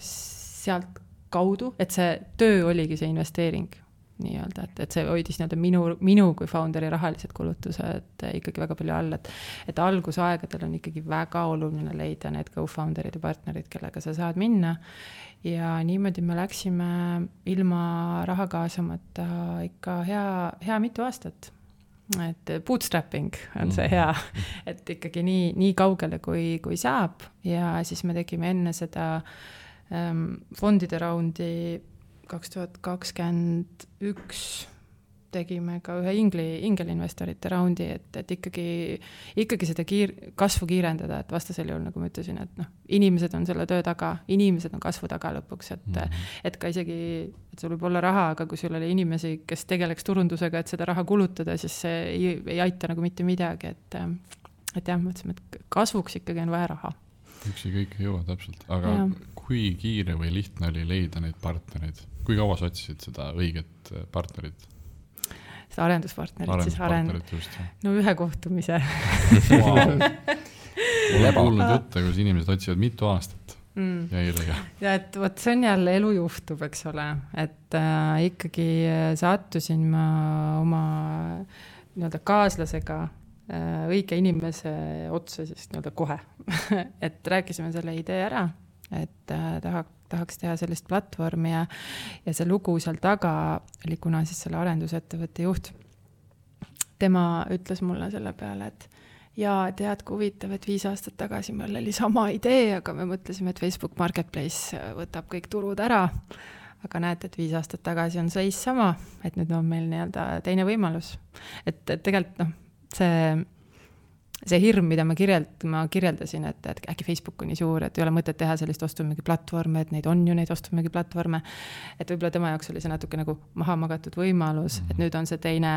S3: sealt kaudu, et see töö oligi see investeering nii-öelda, et see hoidis nii-öelda minu kui founderi rahalised kulutused ikkagi väga palju all, et algusaegadel on ikkagi väga oluline leida need co-founderid ja partnerid, kellega sa saad minna ja niimoodi me läksime ilma raha kaasamata ikka hea mitu aastat. Et bootstrapping on see hea, et ikkagi nii kaugele kui saab ja siis me tegime enne seda fondide raundi 2021 tegime ka ühe ingelinvestorite raundi, et ikkagi seda kasvu kiirendada, et vastasel juhul, nagu ma ütlesin, et inimesed on selle töö taga, inimesed on kasvu taga lõpuks, et ka isegi, et sul võib olla raha, aga kui sul oli inimesi, kes tegeleks turundusega, et seda raha kulutada, siis see ei aita nagu mitte midagi, et jah, mõtlesime, et kasvuks ikkagi on vaja raha.
S1: Üksi kõik ei jõua täpselt, aga kui kiire või lihtne oli leida neid partnereid? Kui kaua sa otsisid seda õiget partnerit?
S3: Seda arenduspartnerit
S1: just.
S3: No ühe kohtumise.
S1: Olen kuulnud jutte, kus inimesed otsivad mitu aastat ja ei leia. Ja
S3: et võt, see on jälle elu juhtub, eks ole, et ikkagi sattusin ma oma nii-öelda kaaslasega õige inimese otsa siis nii-öelda kohe. Et rääkisime selle idee ära, et tahaks teha sellist platvormi ja see lugu seal taga oli kuna siis selle arendusettevõtte juht. Tema ütles mulle selle peale, et tead, kui huvitav, et 5 aastat tagasi meil oli sama idee, aga me mõtlesime, et Facebook Marketplace võtab kõik turud ära. Aga näete, et 5 aastat tagasi on seis sama, et nüüd on meil nii-öelda teine võimalus. Et tegelikult see hirm, mida ma kirjeldasin, et äkki Facebook on nii suur, et ei ole mõtet teha sellist ostumüügi platvorme, et neid on ju neid ostumüügi platvorme, et võib-olla tema jaoks oli see natuke nagu maha magatud võimalus, et nüüd on see teine,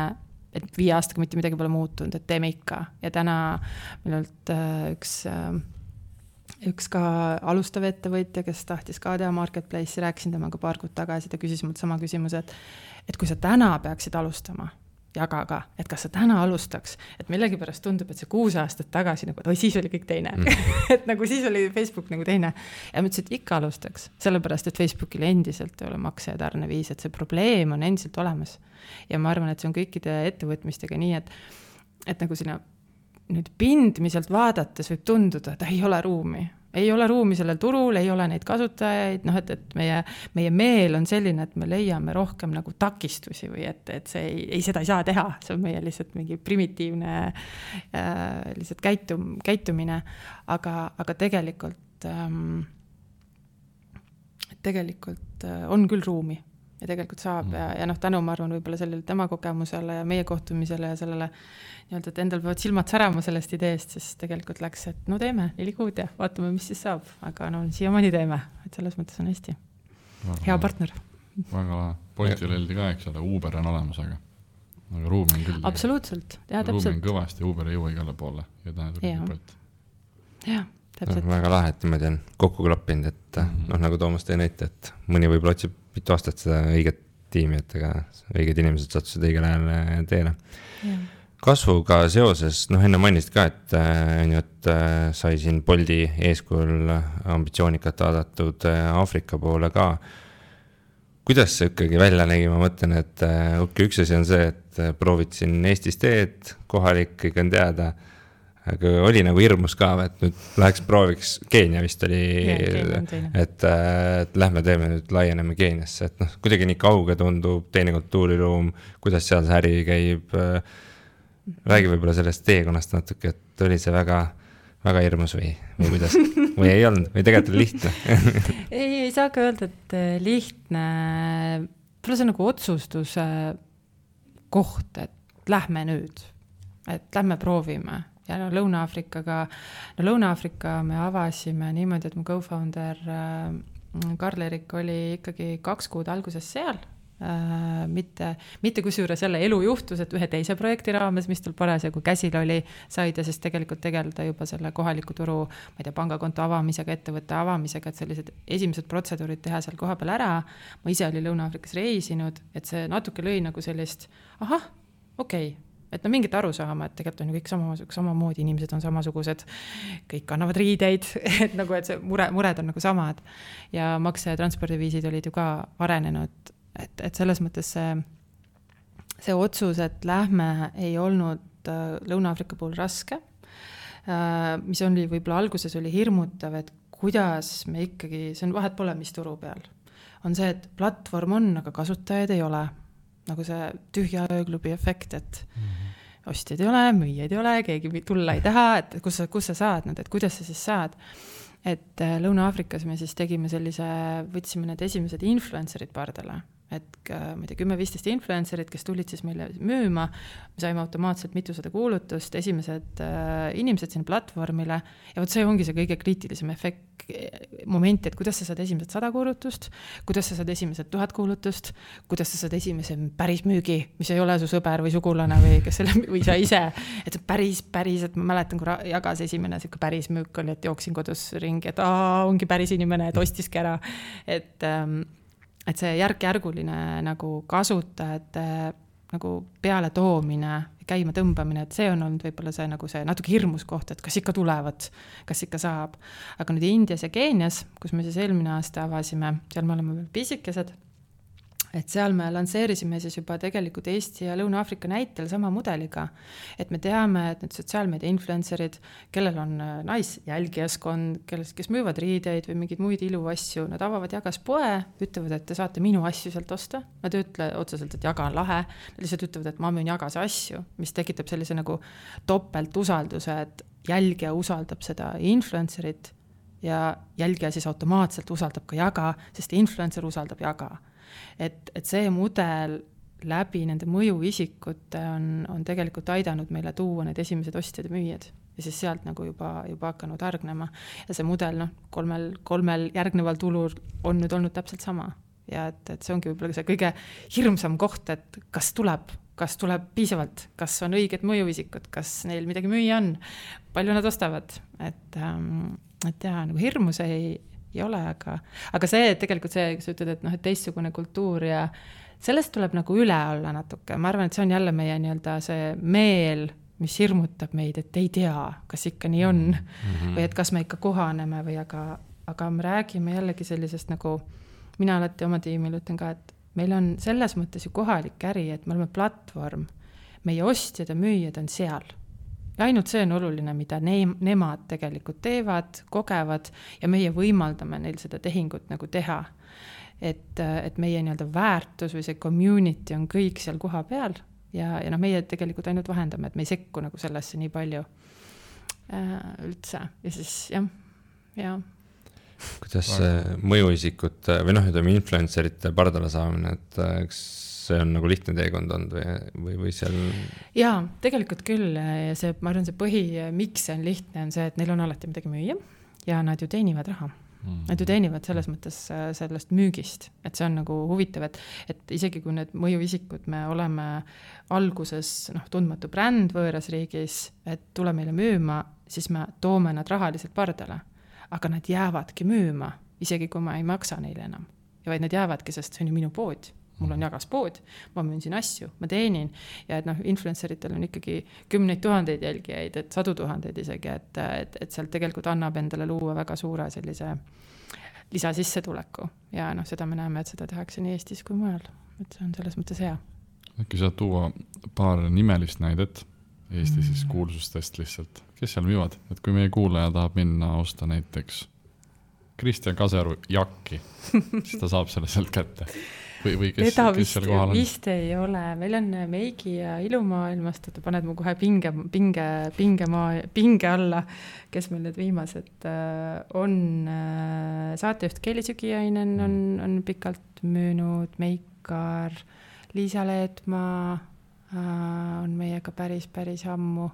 S3: et 5 aastaga mitte midagi pole muutunud, et teeme ikka. Ja täna minult üks ka alustav ettevõtja, kes tahtis ka teha marketplace'i, rääkisin temaga paar kuud tagasi, ta küsis mult sama küsimuse, et kui sa täna peaksid alustama Jagaga, et kas sa täna alustaks, et millegipärast tundub, et see 6 aastat tagasi nagu, et siis oli kõik teine. Et nagu siis oli Facebook nagu teine. Ja ma ütlesin, et ikka alustaks, sellepärast, et Facebookil endiselt ei ole makse ja tarneviis, et see probleem on endiselt olemas. Ja ma arvan, et see on kõikide ettevõtmistega nii, et nagu sinna nüüd pindmiselt vaadates võib tunduda, et ei ole ruumi. Ei ole ruumi sellel turul, ei ole neid kasutajaid, noh, et meie meel on selline, et me leiame rohkem nagu takistusi või et see seda ei saa teha, see on meie lihtsalt mingi primitiivne lihtsalt käitumine, aga tegelikult on küll ruumi ja tegelikult saab ja noh, tänu ma arvan võib-olla sellele tema kogemusele ja meie kohtumisele ja sellele nii-öelda, et endal peavad silmad särama sellest ideest, siis tegelikult läks, et no teeme 4 kuud ja vaatame, mis siis saab, aga no siiamaani teeme, et selles mõttes on hästi hea partner.
S1: Väga lahe. Boltil öeldi ka, eks ole, Uber on olemas, aga ruumi on küll.
S3: Absoluutselt, ja täpselt.
S1: Ruumi on kõvasti, Uber ei jõua igale poole ja tähendab Bolt.
S3: Jah, täpselt.
S2: Väga lahe, et niimoodi on kokku klappinud, et noh, nagu Toomas tõi näite, et mõni võib-olla otsib mitu aastat seda õiget tiimi, et ega õiged inimesed sattusid õigel ajal teele. Kasvuga seoses, noh enne mainisid ka, et sai siin Bolti eeskujul ambitsioonikat vaadatud Aafrika poole ka. Kuidas see ikkagi välja nägi, ma mõtlen, et üks asi on see, et proovid siin Eestis teed, kohalik kõik on teada, aga oli nagu hirmus ka, et nüüd läheks prooviks, Keenia vist oli, et lähme teeme nüüd, laieneme Keeniasse, et noh, kuidagi nii kauge tundub, teine kultuuriruum, kuidas seal see äri käib, räägi võib-olla sellest teekonnast natuke, et oli see väga, väga hirmus või kuidas, või ei olnud, või tegelikult oli lihtne?
S3: ei saa ka öelda, et lihtne, see on nagu otsustuse koht, et lähme nüüd, et lähme proovime. Ja no Lõuna-Aafrika me avasime niimoodi, et mu co-founder Karl-Erik oli ikkagi 2 kuud alguses seal, mitte kusjuures jälle elu juhtus, et ühe teise projekti raames, mis tal parasjagu käsil oli, sai ta siis tegelikult tegeleda juba selle kohaliku turu, ma ei tea, pangakonto avamisega, ettevõtte avamisega, et sellised esimesed protseduurid teha seal koha peal ära. Ma ise oli Lõuna-Aafrikas reisinud, et see natuke lõi nagu sellist, okei. Et no mingit aru saama, et tegelikult on ju kõik samamoodi, inimesed on samasugused, kõik kannavad riideid, et nagu, et see mured on nagu samad ja makse- ja transpordiviisid olid ju ka arenenud, et selles mõttes see otsus, et lähme ei olnud Lõuna-Aafrika puhul raske, mis oli võib-olla alguses oli hirmutav, et kuidas me ikkagi, see on vahet pole, mis turu peal, on see, et platvorm on, aga kasutajaid ei ole. Nagu see tühja ööklubi efekt, et ostjaid ei ole, müüjaid ei ole, keegi tulla ei taha, et kus sa saad, et kuidas sa siis saad. Et Lõuna-Aafrikas me siis tegime võtsime need esimesed influencerid pardale, et ma ei tea, 10-15 influencerid, kes tulid siis meile müüma, me saime automaatselt mitusada kuulutust, esimesed inimesed sinna platvormile ja see ongi see kõige kriitilisem moment, et kuidas sa saad esimesed 100 kuulutust, kuidas sa saad esimesed 1000 kuulutust, kuidas sa saad esimese päris müügi, mis ei ole su sõber või sugulane või sa ise, et päris, et ma mäletan, kui jagas esimene siuke päris müük oli, et jooksin kodus ringi, et ongi päris inimene, et ostiski ära, et see järk-järguline nagu kasutajate nagu peale toomine, käima tõmbamine, et see on olnud võib-olla see nagu see natuke hirmus koht, et kas ikka tulevad, kas ikka saab. Aga nüüd Indias ja Keenias, kus me siis eelmine aasta avasime, seal me oleme veel pisikesed, et seal me lansseerisime siis juba tegelikult Eesti ja Lõuna-Aafrika näitel sama mudeliga, et me teame, et need sotsiaalmeedia influencerid, kellel on naisjälgijaskond, kes müüvad riideid või mingeid muid iluasju, nad avavad jagas poe, ütlevad, et te saate minu asju sealt osta, nad ei ütle otseselt, et jaga on lahe, nad lihtsalt ütlevad, et ma müün jagas asju, mis tekitab sellise nagu topelt usalduse, et jälgija usaldab seda influencerit ja jälgija siis automaatselt usaldab ka jaga, sest influencer usaldab jaga. Et see mudel läbi nende mõjuisikute on tegelikult aidanud meile tuua need esimesed ostjad ja müüjad ja siis sealt nagu juba hakanud hargnema ja see mudel kolmel järgneval tulul on nüüd olnud täpselt sama ja et see ongi võib-olla see kõige hirmsam koht, et kas tuleb piisavalt, kas on õiged mõjuisikud, kas neil midagi müüa on, palju nad ostavad, et nagu hirmus ei ole, aga see, et tegelikult see, kui sa ütled, et teistsugune kultuur ja sellest tuleb nagu üle olla natuke. Ma arvan, et see on jälle meie nii-öelda see meel, mis hirmutab meid, et ei tea, kas ikka nii on või et kas me ikka kohaneme või aga me räägime jällegi sellisest nagu, mina alati oma tiimil ütlen ka, et meil on selles mõttes ju kohalik äri, et me oleme platvorm, meie ostjad ja müüjad on seal ja ainult see on oluline, mida nemad tegelikult teevad, kogevad ja meie võimaldame neil seda tehingut nagu teha. Et meie nii-öelda väärtus või see community on kõik seal koha peal ja meie tegelikult ainult vahendame, et me ei sekku nagu sellesse nii palju üldse ja siis jah.
S2: Kuidas mõjuisikut või ütleme influencerite pardale saamine, et eks see on nagu lihtne teekond olnud või seal?
S3: Jaa, tegelikult küll ja see, ma arvan, see miks see on lihtne, on see, et neil on alati midagi müüa ja nad ju teenivad raha. Nad ju teenivad selles mõttes sellest müügist, et see on nagu huvitav, et isegi kui need mõjuisikud me oleme alguses tundmatu bränd võõras riigis, et tule meile müüma, siis me toome nad rahaliselt pardale, aga nad jäävadki müüma, isegi kui ma ei maksa neile enam. Ja vaid nad jäävadki, sest see on ju minu pood. Mul on jagas pood, ma müün siin asju, ma teenin ja et influenceritel on ikkagi 10 000 jälgijaid, et 100 000 isegi, et sealt tegelikult annab endale luua väga suure sellise lisasissetuleku ja seda me näeme, et seda tehakse nii Eestis kui mujal, et see on selles mõttes hea.
S1: Äkki saad tuua paar nimelist näidet Eesti siis kuulsustest lihtsalt, kes seal müüvad, et kui meie kuulaja tahab minna osta näiteks Kristjan Kaseru jakki, siis ta saab selle sealt kätte. Või kes seal kohal on?
S3: Vist ei ole. Meil on Meigi ja ilumaailmast, et paned mu kohe pinge alla, kes meil need viimased on. Saatejuht Kelly Sügiainen on pikalt müünud, Meikar, Liisa Leetmaa on meiega päris ammu.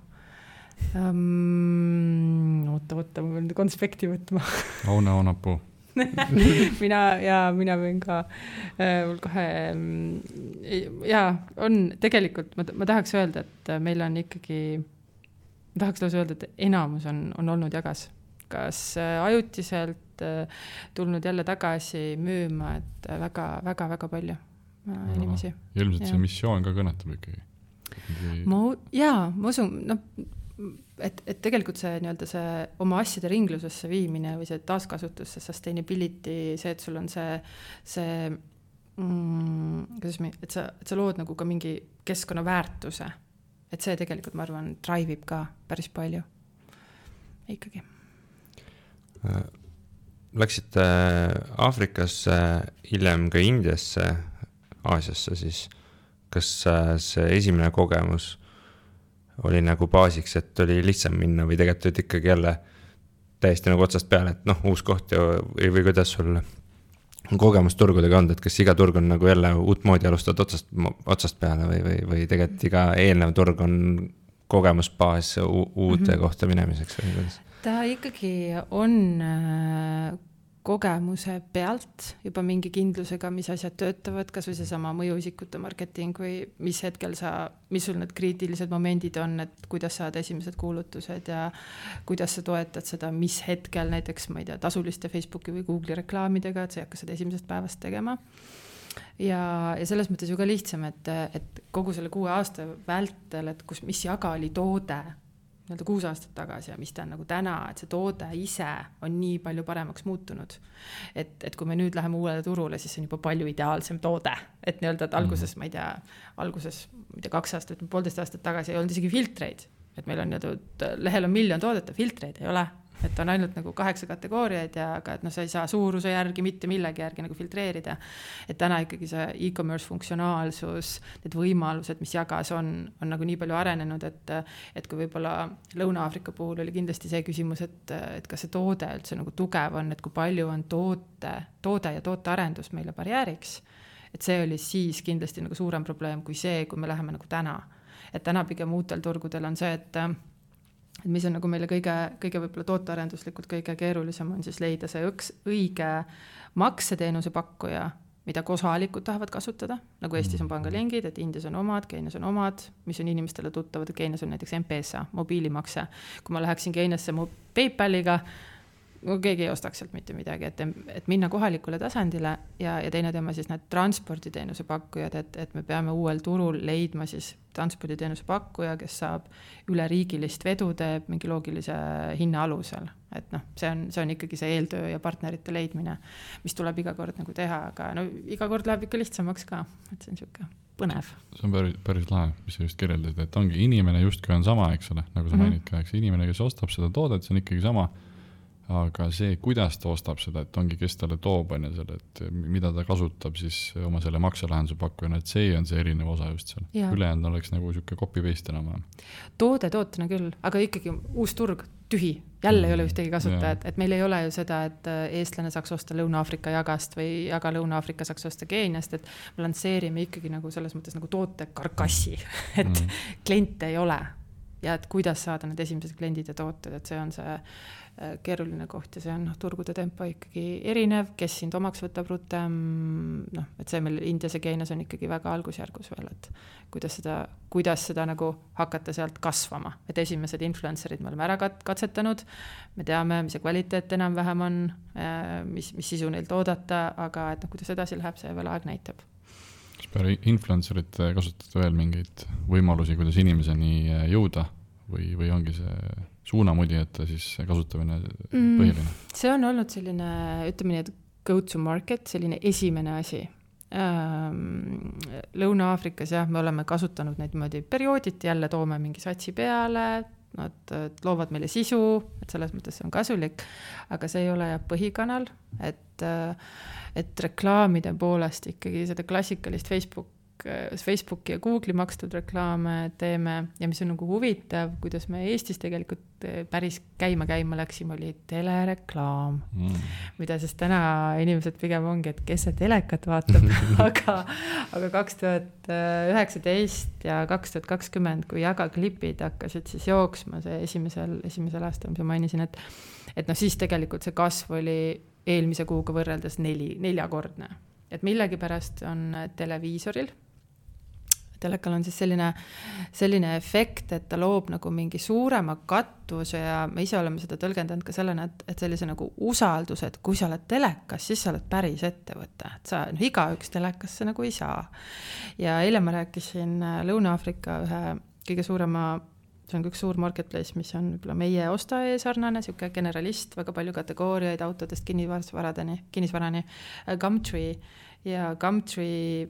S3: Oota, ma pean konspekti võtma.
S1: Aune Oonapuu.
S3: mina võin ka mul kohe on tegelikult ma tahaks öelda, et meil on ikkagi ma tahaks lausa öelda, et enamus on olnud jagas, kas ajutiselt tulnud jälle tagasi müüma, et väga palju inimesi.
S1: Ilmselt see missioon ka kõnetab ikkagi.
S3: Ma usun, et tegelikult see nii-öelda see oma asjade ringlusesse viimine või see taaskasutusse, sustainability, see, et sul on et sa lood nagu ka mingi keskkonnaväärtuse, et see tegelikult, ma arvan, drive'ib ka päris palju ikkagi.
S2: Läksite Aafrikasse, hiljem ka Indiasse, Aasiasse, siis kas see esimene kogemus oli nagu baasiks, et oli lihtsam minna või tegelikult ikkagi jälle täiesti nagu otsast peale, et uus koht või kuidas sul kogemus turgudega on, et kas iga turg on nagu jälle uut moodi alustad otsast peale või tegelikult iga eelnev turg on kogemusbaas uute kohta minemiseks või kuidas?
S3: Ta ikkagi on kogemuse pealt juba mingi kindlusega, mis asjad töötavad, kas või see sama mõjuisikute marketing või mis hetkel mis sul need kriitilised momendid on, et kuidas saad esimesed kuulutused ja kuidas sa toetad seda, mis hetkel näiteks, ma ei tea, tasuliste Facebooki või Google'i reklaamidega, et sa ei hakka seda esimesest päevast tegema. Ja selles mõttes ju ka lihtsam, et kogu selle 6 aasta vältel, et mis jaga oli toode 6 aastat tagasi ja mis ta on nagu täna, et see toode ise on nii palju paremaks muutunud. Et kui me nüüd läheme uuele turule, siis on juba palju ideaalsem toode. Et nii-öelda, et alguses 2 aastat, 1,5 aastat tagasi ei olnud isegi filtreid. Et meil on lehel on 1 miljon toodet, filtreid ei ole. Et on ainult nagu 8 kategooriaid ja aga, et sa ei saa suuruse järgi, mitte millegi järgi nagu filtreerida. Et täna ikkagi see e-commerce funktsionaalsus, need võimalused, mis jagas on nagu nii palju arenenud, et kui võib-olla Lõuna-Aafrika puhul oli kindlasti see küsimus, et kas see toode üldse nagu tugev on, et kui palju on toode ja tootearendus meile barjääriks. Et see oli siis kindlasti nagu suurem probleem kui see, kui me läheme nagu täna. Et täna pigem uutel turgudel on see, et mis on nagu meile kõige võib-olla tootearenduslikult kõige keerulisem on siis leida see õige makseteenuse pakkuja, mida kohalikud tahavad kasutada, nagu Eestis on pangalingid, et Indias on omad, Keenias on omad, mis on inimestele tuttavad, et Keenias on näiteks M-Pesa, mobiilimakse. Kui ma läheksin Keeniasse PayPaliga, keegi ei ostaks sealt mitte midagi, et minna kohalikule tasandile ja teine teema siis need transporditeenuse pakkujad, et me peame uuel turul leidma siis transporditeenuse pakkuja, kes saab üleriigilist vedu teeb mingi loogilise hinna alusel. Et see on ikkagi see eeltöö ja partnerite leidmine, mis tuleb iga kord nagu teha, aga iga kord läheb ikka lihtsamaks ka, et see on siuke. põnev.
S1: See on päris lahe, mis sa just kirjeldad, et ongi inimene justkui on sama, eks ole, nagu sa mainid ka, eks inimene, kes ostab seda toodet, see on ikkagi sama, aga see, kuidas ta ostab seda, et ongi, kes talle toob, on selle, et mida ta kasutab siis oma selle makselahenduse pakkujana, et see on see erinev osa just seal. Ülejäänud oleks nagu siuke copy-paste enam.
S3: Tootena küll, aga ikkagi uus turg, tühi, jälle ei ole ühtegi kasutajat, et meil ei ole ju seda, et eestlane saaks osta Lõuna-Aafrika jagast või jaga Lõuna-Aafrika saaks osta Keeniast, et me lansseerime ikkagi nagu selles mõttes nagu toote karkassi, et kliente ei ole ja et kuidas saada need esimesed kliendid ja tooted, et see on see keeruline koht ja see on turgude tempo ikkagi erinev, kes sind omaks võtab rutem, et see meil Indias ja Keenias on ikkagi väga algusjärgus veel, et kuidas seda nagu hakata sealt kasvama, et esimesed influencerid me oleme ära katsetanud, me teame, mis see kvaliteet enam-vähem on, mis sisu neilt oodata, aga et kuidas edasi läheb, see veel aeg näitab.
S1: Kas peale influencerit kasutate veel mingeid võimalusi, kuidas inimeseni jõuda või ongi see suunamudijate siis kasutamine põhiline?
S3: See on olnud selline, ütleme nii, et go to market, selline esimene asi. Lõuna-Aafrikas me oleme kasutanud neid niimoodi periooditi, jälle toome mingi satsi peale, nad loovad meile sisu, et selles mõttes see on kasulik, aga see ei ole põhikanal, et reklaamide poolest ikkagi seda klassikalist Facebooki ja Google'i makstud reklaame teeme ja mis on nagu huvitav, kuidas me Eestis tegelikult päris käima läksime, oli telereklaam, mida siis täna inimesed pigem ongi, et kes see telekat vaatab, aga 2019 ja 2020, kui jagaklipid hakkasid siis jooksma, see esimesel aastal, mis ma mainisin, et siis tegelikult see kasv oli eelmise kuuga võrreldes neljakordne. Et millegi pärast on televiisoril, telekal on siis selline efekt, et ta loob nagu mingi suurema kattuse ja me ise oleme seda tõlgendanud ka sellena, et sellise nagu usalduse, et kui sa oled telekas, siis sa oled päris ettevõte, et sa igaüks telekasse nagu ei saa. Ja eile ma rääkisin Lõuna-Aafrika ühe kõige suurema, see on üks suur marketplace, mis on võib-olla meie ostaja sarnane, siuke generalist, väga palju kategooriaid autodest kinnisvarani, Gumtree ja Gumtree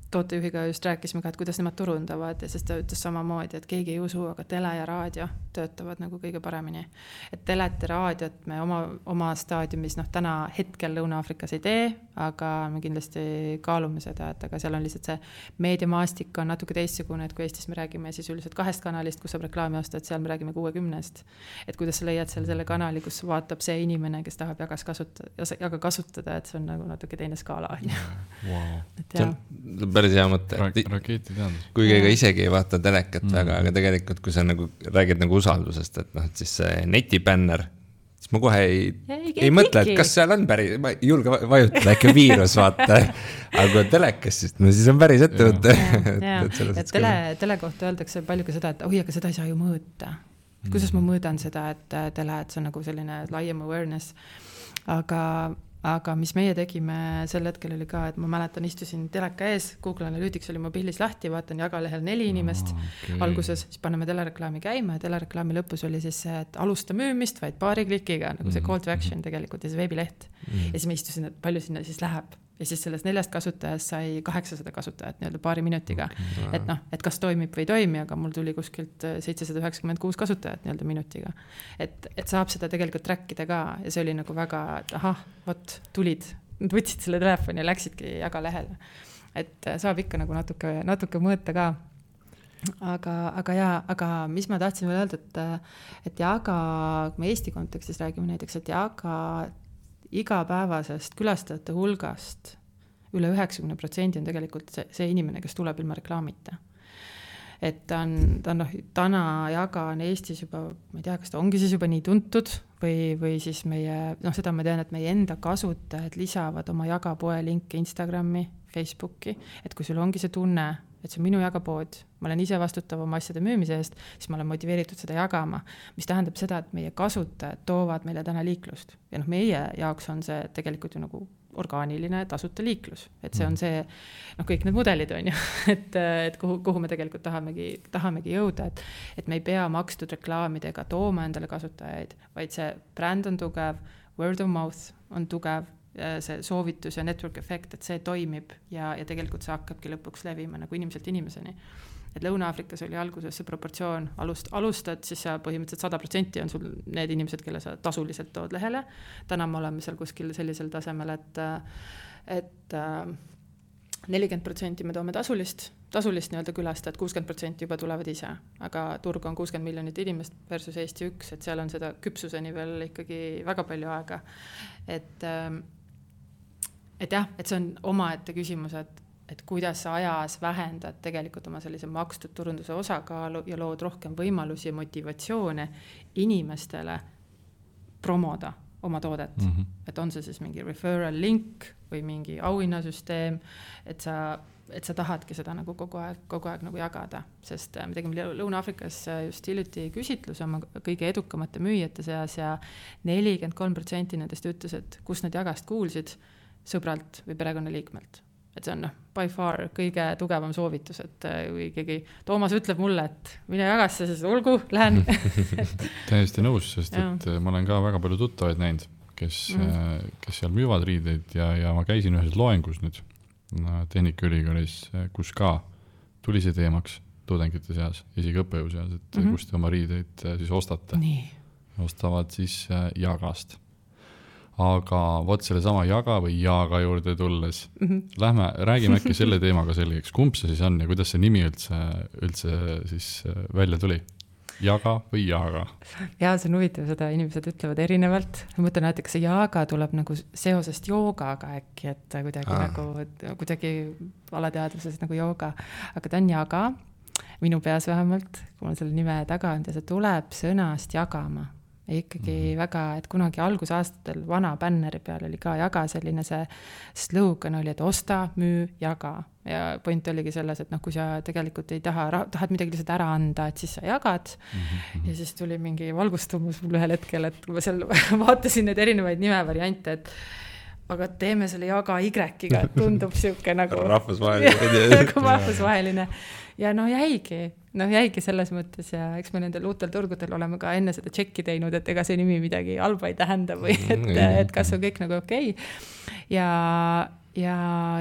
S3: tootejuhiga just rääkisime ka, et kuidas nemad turundavad ja sest ta ütles samamoodi, et keegi ei usu, aga tele ja raadio töötavad nagu kõige paremini. Et telet ja raadiot me oma staadiumis täna hetkel Lõuna-Aafrikas ei tee, aga me kindlasti kaalume seda, et aga seal on lihtsalt see meediamaastik on natuke teistsugune, et kui Eestis me räägime siis üldiselt 2 kanalist, kus saab reklaami osta, et seal me räägime 60. Et kuidas sa leiad selle kanali, kus vaatab see inimene, kes tahab jaga kasutada, et see on nagu natuke teine skaala.
S2: Wow. Päris hea mõte. Kuigi ega isegi ei vaata telekat väga, aga tegelikult kui sa nagu räägid nagu usaldusest, et siis see netibänner, siis ma kohe ei mõtle, et kas seal on päris, ma ei julge vajutada äkki viirus vaata, aga kui on telekas, siis on päris ettevõte.
S3: Et tele kohta öeldakse palju ka seda, et aga seda ei saa ju mõõta. Kuidas ma mõõdan seda, et tele, et see on nagu selline laiem awareness, aga mis meie tegime sel hetkel oli ka, et ma mäletan, istusin teleka ees, Google Analytics oli mobiilis lahti, vaatan jagalehel 4 inimest alguses, siis paneme telereklaami käima ja telereklaami lõpus oli siis see, et alusta müümist, vaid paari klikiga, nagu see call to action tegelikult ja see veebileht. Ja siis ma istusin, et palju sinna siis läheb. Ja siis sellest 4 kasutajast sai 800 kasutajat nii-öelda paari minutiga. Et kas toimib või ei toimi, aga mul tuli kuskilt 796 kasutajat nii-öelda minutiga. Et saab seda tegelikult trackida ka ja see oli nagu väga, et tulid, nad võtsid selle telefoni ja läksidki jagalehele. Et saab ikka nagu natuke mõõta ka. Aga mis ma tahtsin veel öelda, et jaga, kui me Eesti kontekstis räägime näiteks, et jaga igapäevasest külastajate hulgast üle 90% on tegelikult see inimene, kes tuleb ilma reklaamita. Et ta on täna jaga on Eestis juba, ma ei tea, kas ta ongi siis juba nii tuntud või siis meie, seda ma tean, et meie enda kasutajad lisavad oma jagapoe linke Instagrami, Facebooki, et kui sul ongi see tunne, et see on minu jagapood, ma olen ise vastutav oma asjade müümise eest, siis ma olen motiveeritud seda jagama, mis tähendab seda, et meie kasutajad toovad meile täna liiklust. Ja meie jaoks on see tegelikult ju nagu orgaaniline tasuta liiklus. Et see on see, kõik need mudelid on ju, et kuhu me tegelikult tahamegi jõuda, et me ei pea makstud reklaamidega tooma endale kasutajaid, vaid see bränd on tugev, word of mouth on tugev, see soovitus ja network efekt, et see toimib ja tegelikult see hakkabki lõpuks levima nagu inimeselt inimeseni. Et Lõuna-Aafrikas oli alguses see proportsioon, alustad, siis sa põhimõtteliselt 100% on sul need inimesed, kelle sa tasuliselt tood lehele. Täna me oleme seal kuskil sellisel tasemel, et 40% me toome tasulist nii-öelda külastajad, 60% juba tulevad ise, aga turg on 60 miljonit inimest versus Eesti 1, et seal on seda küpsuseni veel ikkagi väga palju aega. Et jah, et see on omaette küsimus, et kuidas sa ajas vähendad tegelikult oma sellise makstud turunduse osakaalu ja lood rohkem võimalusi ja motivatsioone inimestele promoda oma toodet. Et on see siis mingi referral link või mingi auhinnasüsteem, et sa tahadki seda nagu kogu aeg nagu jagada, sest me tegime Lõuna-Aafrikas just hiljuti küsitluse oma kõige edukamate müüjate seas ja 43% nendest ütles, et kus nad jagast kuulsid sõbralt või perekonnaliikmelt. Et see on by far kõige tugevam soovitus, et kui keegi Toomas ütleb mulle, et mine jagasse, siis olgu, lähen.
S1: Täiesti nõus, sest et ma olen ka väga palju tuttavaid näinud, kes seal müüvad riideid ja ma käisin ühes loengus nüüd Tehnikaülikoolis, kus ka tuli see teemaks tudengite seas, isegi õppejõu seas, et kus te oma riideid siis ostate.
S3: Nii.
S1: Ostavad siis jagast. Aga võt selle sama jaga või jaaga juurde tulles. Räägime äkki selle teemaga selgeks. Kumb see siis on ja kuidas see nimi üldse siis välja tuli? Jaga või jaaga?
S3: Ja see on huvitav, seda inimesed ütlevad erinevalt. Ma mõtlen, et see jaaga tuleb nagu seosest joogaga äkki, et kuidagi alateadvuses nagu jooga. Aga ta on jaga, minu peas vähemalt, kui ma selle nime taga on, ja see tuleb sõnast jagama. Ja ikkagi väga, et kunagi algusaastatel vana bänneri peal oli ka jaga selline see slogan oli, et osta, müü, jaga. Ja point oligi selles, et kui sa tegelikult ei tahad midagi lihtsalt ära anda, et siis sa jagad. Ja siis tuli mingi valgustumus mul ühel hetkel, et kui ma seal vaatasin need erinevaid nimevariante, et aga teeme selle jaga Y-ga, et tundub siuke nagu rahvusvaheline. Ja jäigi selles mõttes ja eks me nendel uutel turgudel oleme ka enne seda tšekki teinud, et ega see nimi midagi halba ei tähenda või et kas on kõik nagu okei. Ja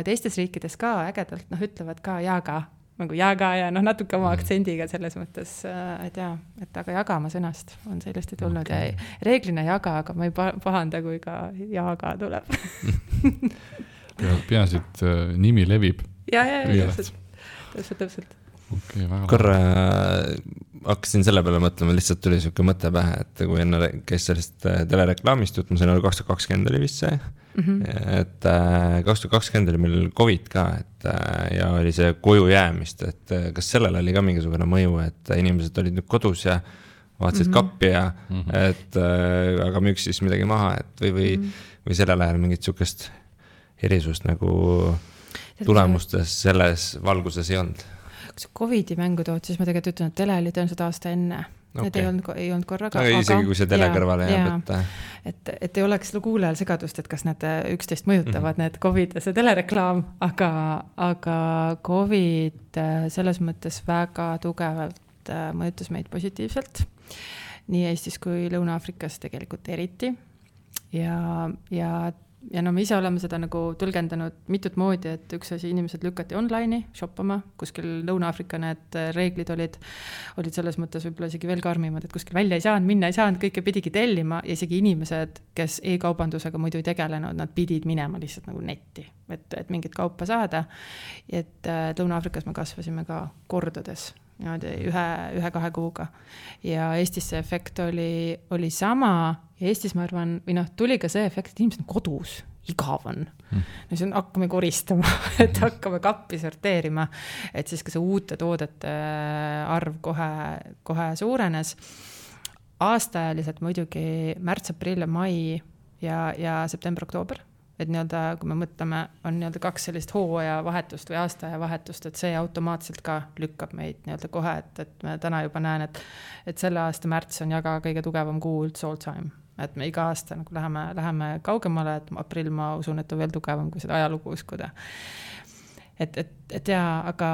S3: teistes riikides ka ägedalt ütlevad ka jaga, nagu jaga ja natuke oma aktsendiga selles mõttes, et aga jagama sõnast on sellest tulnud ja reeglina jaga, aga ma ei pahanda, kui ka jaga tuleb.
S1: Peaasi, et nimi levib.
S3: Ja, täpselt.
S1: Okay,
S2: korra hakkasin selle peale mõtlema, lihtsalt tuli siuke mõte pähe, et kui enne käis sellest telereklaamist jutt, ma sain oli 2020 oli vist see, et 2020 oli meil COVID ka, ja oli see koju jäämist, et kas sellel oli ka mingisugune mõju, et inimesed olid nüüd kodus ja vaatasid kappi ja et aga müüks siis midagi maha, et või sellel ajal mingit siukest erisust nagu tulemustes selles valguses ei olnud.
S3: Kui see COVID-i mängu tood, siis ma tegelikult ütlen, et tele oli tõenäoliselt aasta enne. Need ei olnud korraga.
S2: Aga isegi kui see tele kõrvale jääb,
S3: et ei oleks kuulajal segadust, et kas need üksteist mõjutavad, need COVID ja see telereklaam, aga COVID selles mõttes väga tugevalt mõjutas meid positiivselt. Nii Eestis kui Lõuna-Aafrikas tegelikult eriti. Ja me ise oleme seda nagu tõlgendanud mitut moodi, et üks asi inimesed lükati online'i shoppama, kuskil Lõuna-Aafrika need reeglid olid selles mõttes võib-olla isegi veel karmimad, et kuskil välja ei saanud, minna ei saanud, kõike pidigi tellima ja isegi inimesed, kes e-kaubandusega muidu ei tegelenud, nad pidid minema lihtsalt nagu netti, et mingit kaupa saada. Et Lõuna-Aafrikas me kasvasime ka kordades, ühe-kahe kuuga. Ja Eestis see efekt oli sama ja Eestis ma arvan, tuli ka see efekt, et inimesed on kodus, igav on. Siis hakkame koristama, et hakkame kappi sorteerima, et siis ka see uute toodete arv kohe suurenes. Aastaajaliselt muidugi märts, aprill ja mai ja september, oktoober. Et kui me mõtleme, on 2 sellist hooaja vahetust või aastaaja vahetust, et see automaatselt ka lükkab meid kohe, et me täna juba näen, et selle aasta märts on jaga kõige tugevam kuu üldse all time. Et me iga aasta nagu läheme kaugemale, et aprill ma usun, et on veel tugevam, kui seda ajalugu uskuda. Et aga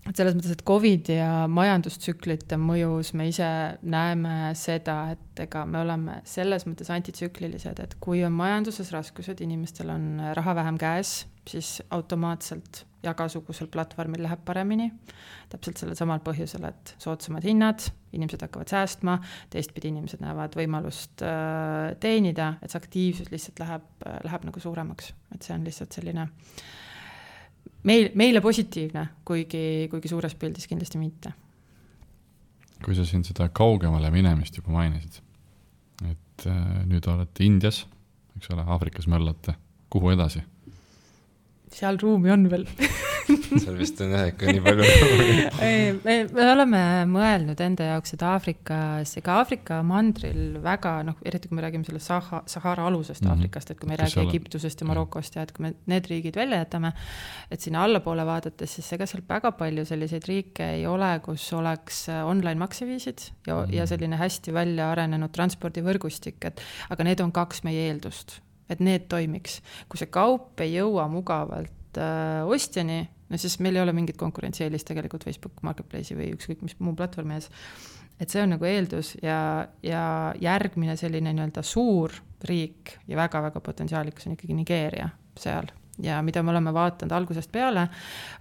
S3: et selles mõttes, et COVID ja majandustsüklite mõjus me ise näeme seda, et ega me oleme selles mõttes antitsüklilised, et kui on majanduses raskused, inimestel on raha vähem käes, siis automaatselt jagasugusel platvormil läheb paremini. Täpselt sellel samal põhjusel, et soodsamad hinnad, inimesed hakkavad säästma, teistpidi inimesed näevad võimalust teenida, et see aktiivsus lihtsalt läheb nagu suuremaks. Et see on lihtsalt selline meile positiivne, kuigi suures pildis kindlasti mitte.
S1: Kui sa siin seda kaugemale minemist juba mainisid, et nüüd olete Indias, eks ole, Aafrikas möllate, kuhu edasi?
S3: Seal ruumi on veel.
S2: Seal vist on ikka nii palju.
S3: me oleme mõelnud enda jaoks, et Aafrika mandril väga, eriti kui me räägime selle Sahara alusest Aafrikast, et kui me ei räägi Egiptusest ja Marokost ja et kui me need riigid välja jätame, et sinna allapoole vaadates, siis ega seal väga palju selliseid riike ei ole, kus oleks online makseviisid ja selline hästi välja arenenud transpordivõrgustik, aga need on 2 meie eeldust. Et need toimiks. Kui see kaup ei jõua mugavalt ostjani, no siis meil ei ole mingit konkurentsieelist tegelikult Facebook Marketplace'i või ükskõik mis muu platvormi ees. Et see on nagu eeldus ja järgmine selline nii-öelda suur riik ja väga-väga potentsiaalikas on ikkagi Nigeeria seal. Ja mida me oleme vaatanud algusest peale,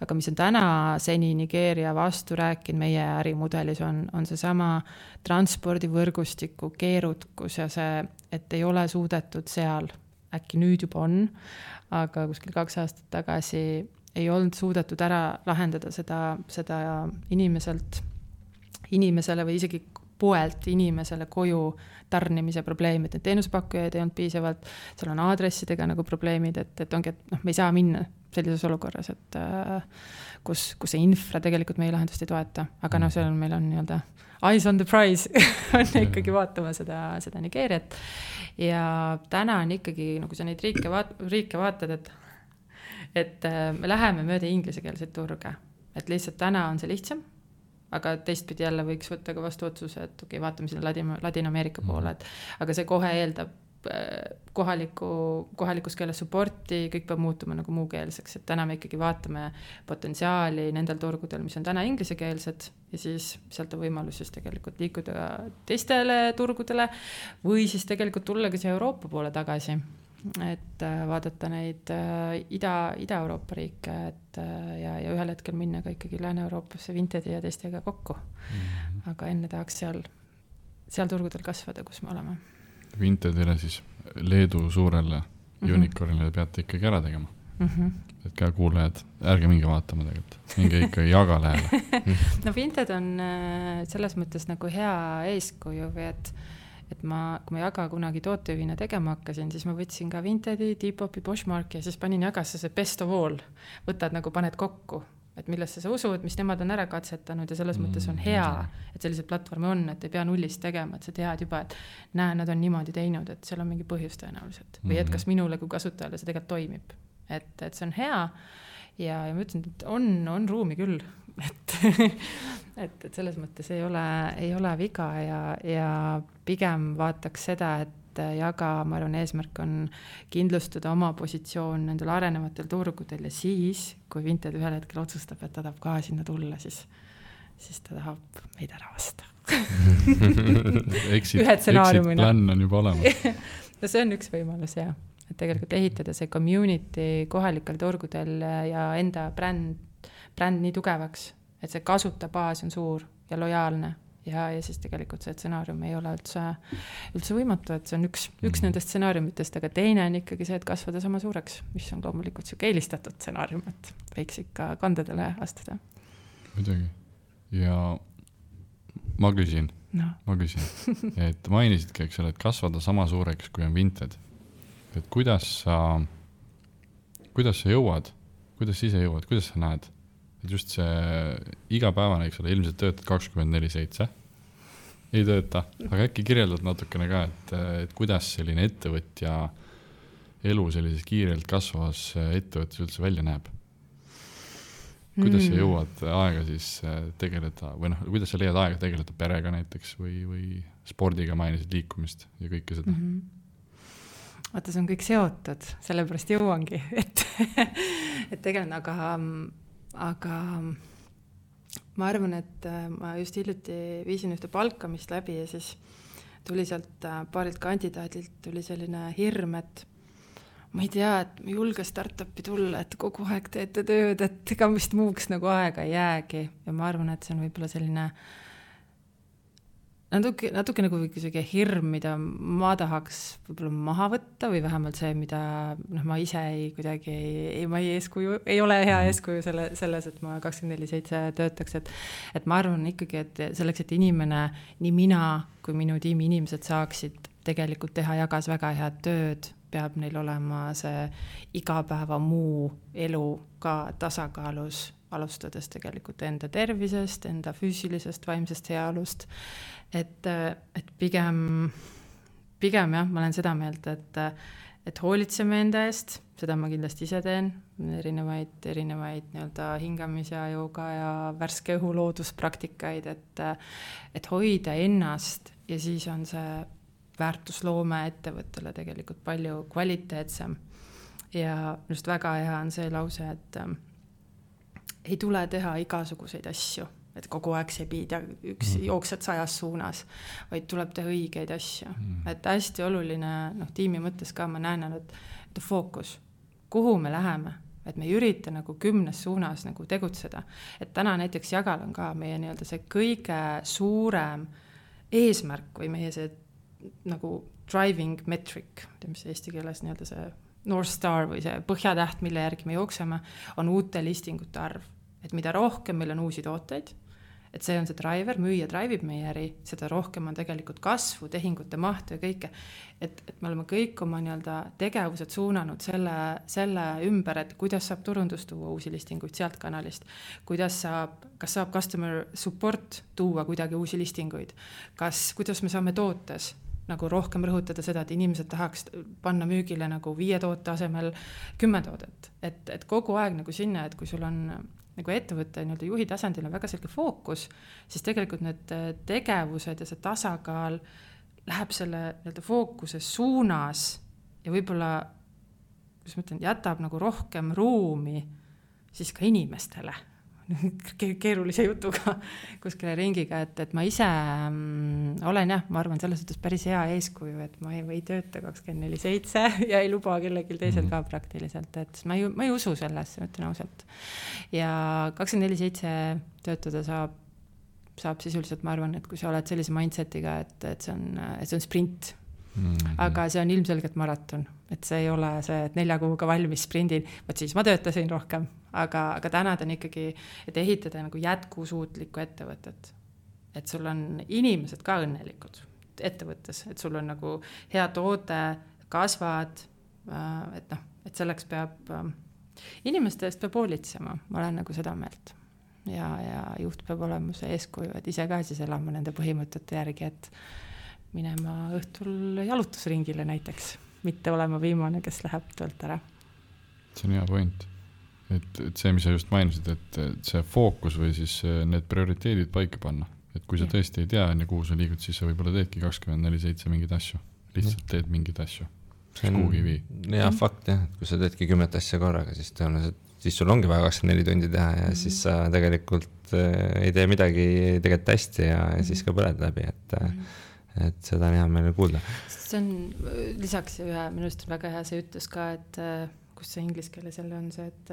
S3: aga mis on täna seni Nigeeria vastu rääkinud meie ärimudelis on see sama transpordivõrgustiku keerukus ja see, et ei ole suudetud seal, äkki nüüd juba on, aga kuskil 2 aastat tagasi ei olnud suudetud ära lahendada seda inimesele või isegi poelt inimesele koju tarnimise probleemid, et teenusepakkujaid ei olnud piisavalt, seal on aadressidega nagu probleemid, et ongi, et me ei saa minna sellises olukorras, et kus see infra tegelikult meie lahendust ei toeta, aga seal meil on nii-öelda eyes on the prize on ikkagi vaatama seda Nigeeriat ja täna on ikkagi, kui sa neid riike vaatad, et me läheme mööda inglisekeelseid turge, et lihtsalt täna on see lihtsam, aga teistpidi jälle võiks võtta ka vastu otsuse, et okei, vaatame sinna Ladina-Ameerika poole, aga see kohe eeldab kohalikus keeles supporti, kõik peab muutuma nagu muukeelseks, et täna me ikkagi vaatame potentsiaali nendel turgudel, mis on täna inglisekeelsed ja siis sealt on võimalus siis tegelikult liikuda teistele turgudele või siis tegelikult tulla ka siia Euroopa poole tagasi, et vaadata neid Ida-Euroopa riike ja ühel hetkel minna ka ikkagi Lääne-Euroopasse Vintedi ja teistega kokku. Aga enne tahaks seal turgudel kasvada, kus me oleme.
S1: Vintedile siis Leedu suurele unicornile peate ikkagi ära tegema. Et ka kuulajad, ärge minge vaatama tegelikult. Minge ikka jaga lähele.
S3: No Vinted on selles mõttes nagu hea eeskuju või et kui ma jaga kunagi tootejuhina tegema hakkasin, siis ma võtsin ka Vintedi, Depop, Poshmarki ja siis panin jagasse see best of all. Võtad nagu paned kokku, et millesse sa usud, mis nemad on ära katsetanud ja selles mõttes on hea, et sellised platvormi on, et ei pea nullist tegema, et sa tead juba, et nad on niimoodi teinud, et seal on mingi põhjus tõenäoliselt. Või et kas minule kui kasutajale see tegelikult toimib. Et see on hea ja ma ütlesin, et on ruumi küll, et selles mõttes ei ole viga ja pigem vaataks seda, et jaga, ma arvan, eesmärk on kindlustada oma positsioon nendel arenevatel turgudel ja siis, kui Vinted ühel hetkel otsustab, et ta tahab ka sinna tulla, siis ta tahab meid ära vasta.
S1: Exit plan on juba olemas.
S3: No see on üks võimalus, jah. Et tegelikult ehitada see community kohalikel turgudel ja enda bränd nii tugevaks, et see kasutabaas on suur ja lojaalne ja siis tegelikult see stsenaarium ei ole üldse võimatu, et see on üks nendest stsenaariumitest, aga teine on ikkagi see, et kasvada sama suureks, mis on loomulikult siuke eelistatud stsenaarium, et võiks ikka kandadele astuda.
S1: Muidugi. Ja ma küsin, et mainisidki, eks ole, et kasvada sama suureks, kui on Vinted. Et kuidas sa jõuad, kuidas sa ise jõuad, kuidas sa näed? Et just see igapäevane, eks ole, ilmselt töötad 24/7, ei tööta, aga äkki kirjeldad natukene ka, et kuidas selline ettevõtja elu sellises kiirelt kasvavas ettevõttes üldse välja näeb? Kuidas sa jõuad aega siis tegeleda, või kuidas sa leiad aega tegeleda perega näiteks või spordiga mainisid liikumist ja kõike seda?
S3: Vaata, see on kõik seotud, sellepärast jõuangi, et tegelikult, aga ma arvan, et ma just hiljuti viisin ühte palkamist läbi ja siis tuli sealt paarilt kandidaadilt tuli selline hirm, et ma ei tea, et ma julge startupi tulla, et kogu aeg teete tööd, et ega vist muuks nagu aega ei jäägi. Ja ma arvan, et see on võib-olla selline natuke nagu selline hirm, mida ma tahaks võib-olla maha võtta või vähemalt see, mida ma ise ma ei ole hea eeskuju selles, et ma 24/7 töötaks, et ma arvan ikkagi, et selleks, et inimene, nii mina kui minu tiimi inimesed saaksid tegelikult teha jagas väga head tööd, peab neil olema see igapäeva muu elu ka tasakaalus, alustades tegelikult enda tervisest, enda füüsilisest, vaimsest heaolust. Et pigem jah, ma olen seda meelt, et hoolitseme enda eest, seda ma kindlasti ise teen, erinevaid nii-öelda hingamise jooga ja värske õhu looduspraktikaid, et hoida ennast ja siis on see väärtusloome ettevõttele tegelikult palju kvaliteetsem. Ja just väga hea on see lause, et ei tule teha igasuguseid asju, et kogu aeg see piid ja jooksed 100 suunas, vaid tuleb teha õigeid asju. Et hästi oluline, tiimi mõttes ka ma näen, et fookus, kuhu me läheme, et me ei ürita nagu 10 suunas nagu tegutseda. Et täna näiteks Jagal on ka meie nii-öelda see kõige suurem eesmärk või meie see nagu driving metric, mis eesti keeles nii-öelda see North Star või see põhjatäht, mille järgi me jookseme, on uute listingute arv. Et mida rohkem meil on uusi tooteid, et see on see driver, müüja drivib meie äri, seda rohkem on tegelikult kasvu, tehingute mahtu ja kõike. Et me oleme kõik oma nii-öelda tegevused suunanud selle ümber, et kuidas saab turundus tuua uusi listinguid sealt kanalist, kas saab customer support tuua kuidagi uusi listinguid, kuidas me saame tootes nagu rohkem rõhutada seda, et inimesed tahaks panna müügile nagu 5 toote asemel 10 toodet. Et kogu aeg nagu sinna, et kui sul on nagu ettevõtte nii-öelda juhi tasandil on väga selge fookus, siis tegelikult need tegevused ja see tasakaal läheb selle nii-öelda fookuse suunas ja võib-olla, kuidas ma ütlen, jätab nagu rohkem ruumi siis ka inimestele. Keerulise jutuga kuskile ringiga, et ma ise olen ma arvan selles suhtes päris hea eeskuju, et ma ei tööta 24/7 ja ei luba kellelgi teisel ka praktiliselt, et ma ei usu selles, ütlen ausalt. Ja 24/7 töötada saab sisuliselt, ma arvan, et kui sa oled sellise mindsetiga, et see on sprint, aga see on ilmselgelt maraton, et see ei ole see, et 4 kuuga valmis sprindin, võt siis ma töötasin rohkem, aga täna on ikkagi, et ehitada nagu jätkusuutlikku ettevõtet, et sul on inimesed ka õnnelikud ettevõttes, et sul on nagu hea toode, kasvad, et selleks peab inimeste eest peab hoolitsema, ma olen nagu seda meelt ja juht peab olema see eeskuju, et ise ka siis elama nende põhimõtete järgi, et minema õhtul jalutusringile näiteks, mitte olema viimane, kes läheb töölt ära.
S1: See on hea point, et see, mis sa just mainisid, et see fookus või siis need prioriteedid paika panna, et kui sa tõesti ei tea, kuhu sa liigud, siis sa võib-olla teedki 24/7 mingeid asju, lihtsalt teed mingeid asju, kuhugi vii.
S2: Hea fakt jah, et kui sa teedki 10 asja korraga, siis sul ongi vaja 24 tundi teha ja siis sa tegelikult ei tee midagi tegelikult hästi ja siis ka põled läbi, et seda on hea meile kuulda.
S3: See on lisaks minu arust väga hea see ütles ka, et kus see inglise keeles jälle on see, et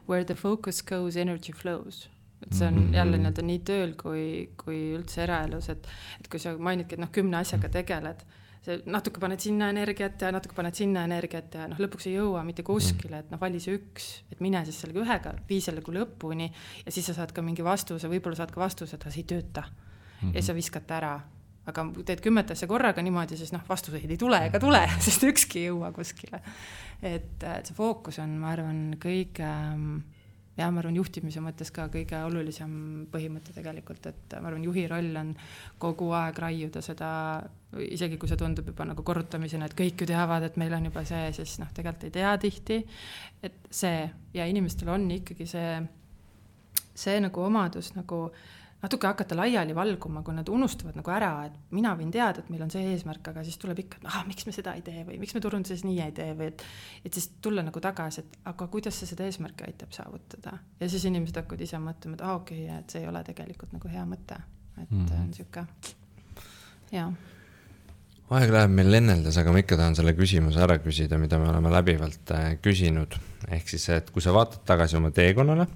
S3: where the focus goes, energy flows. Et see on jälle nii tööl kui üldse eraelus, et kui sa mainidki, et 10 asjaga tegeled, see natuke paned sinna energiat ja natuke paned sinna energiat ja lõpuks ei jõua mitte kuskile, et vali see üks, et mine siis sellega ühega, vii sellega lõpuni ja siis sa saad ka mingi vastuse, võib-olla saad ka vastuse, et see ei tööta ja sa viskad ära. Aga teed 10 asja korraga niimoodi, siis vastuseid ei tule ega tule, sest ükski ei jõua kuskile. Et see fookus on, ma arvan, ma arvan juhtimise mõttes ka kõige olulisem põhimõte tegelikult, et ma arvan juhi roll on kogu aeg raiuda seda, isegi kui see tundub juba nagu korrutamisena, et kõik ju teavad, et meil on juba see, siis tegelikult ei tea tihti, et see ja inimestel on ikkagi see nagu omadus nagu natuke hakata laiali valguma, kui nad unustavad nagu ära, et mina võin teada, et meil on see eesmärk, aga siis tuleb ikka, et miks me seda ei tee või miks me turunduses nii ei tee või et siis tulla nagu tagasi, et aga kuidas see seda eesmärki aitab saavutada. Ja siis inimesed hakkavad ise mõtlema, et okei, et see ei ole tegelikult nagu hea mõte. Et on siuke, jaa.
S2: Aeg läheb meil lenneldes, aga ma ikka tahan selle küsimuse ära küsida, mida me oleme läbivalt küsinud. Ehk siis, et kui sa vaatad tagasi oma teekonnale,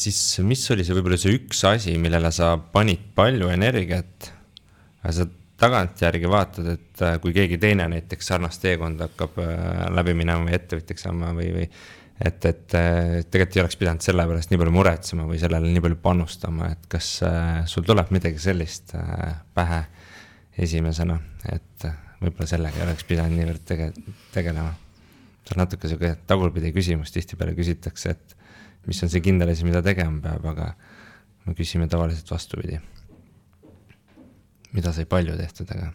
S2: siis mis oli see võib-olla see üks asi, millele sa panid palju energiat, aga sa tagantjärgi vaatad, et kui keegi teine näiteks sarnast teekonda hakkab läbi minema või ettevõtjaks saama või et tegelikult ei oleks pidanud selle pärast nii palju muretsema või sellele nii palju panustama, et kas sul tuleb midagi sellist pähe esimesena, et võib-olla sellega ei oleks pidanud niivõrd tegelema. See on natuke selline tagurpidi küsimus, tihtipeale küsitakse, et mis on see kindel asi, mida tegema peab, aga me küsime tavaliselt vastupidi. Mida sai palju tehtud, aga...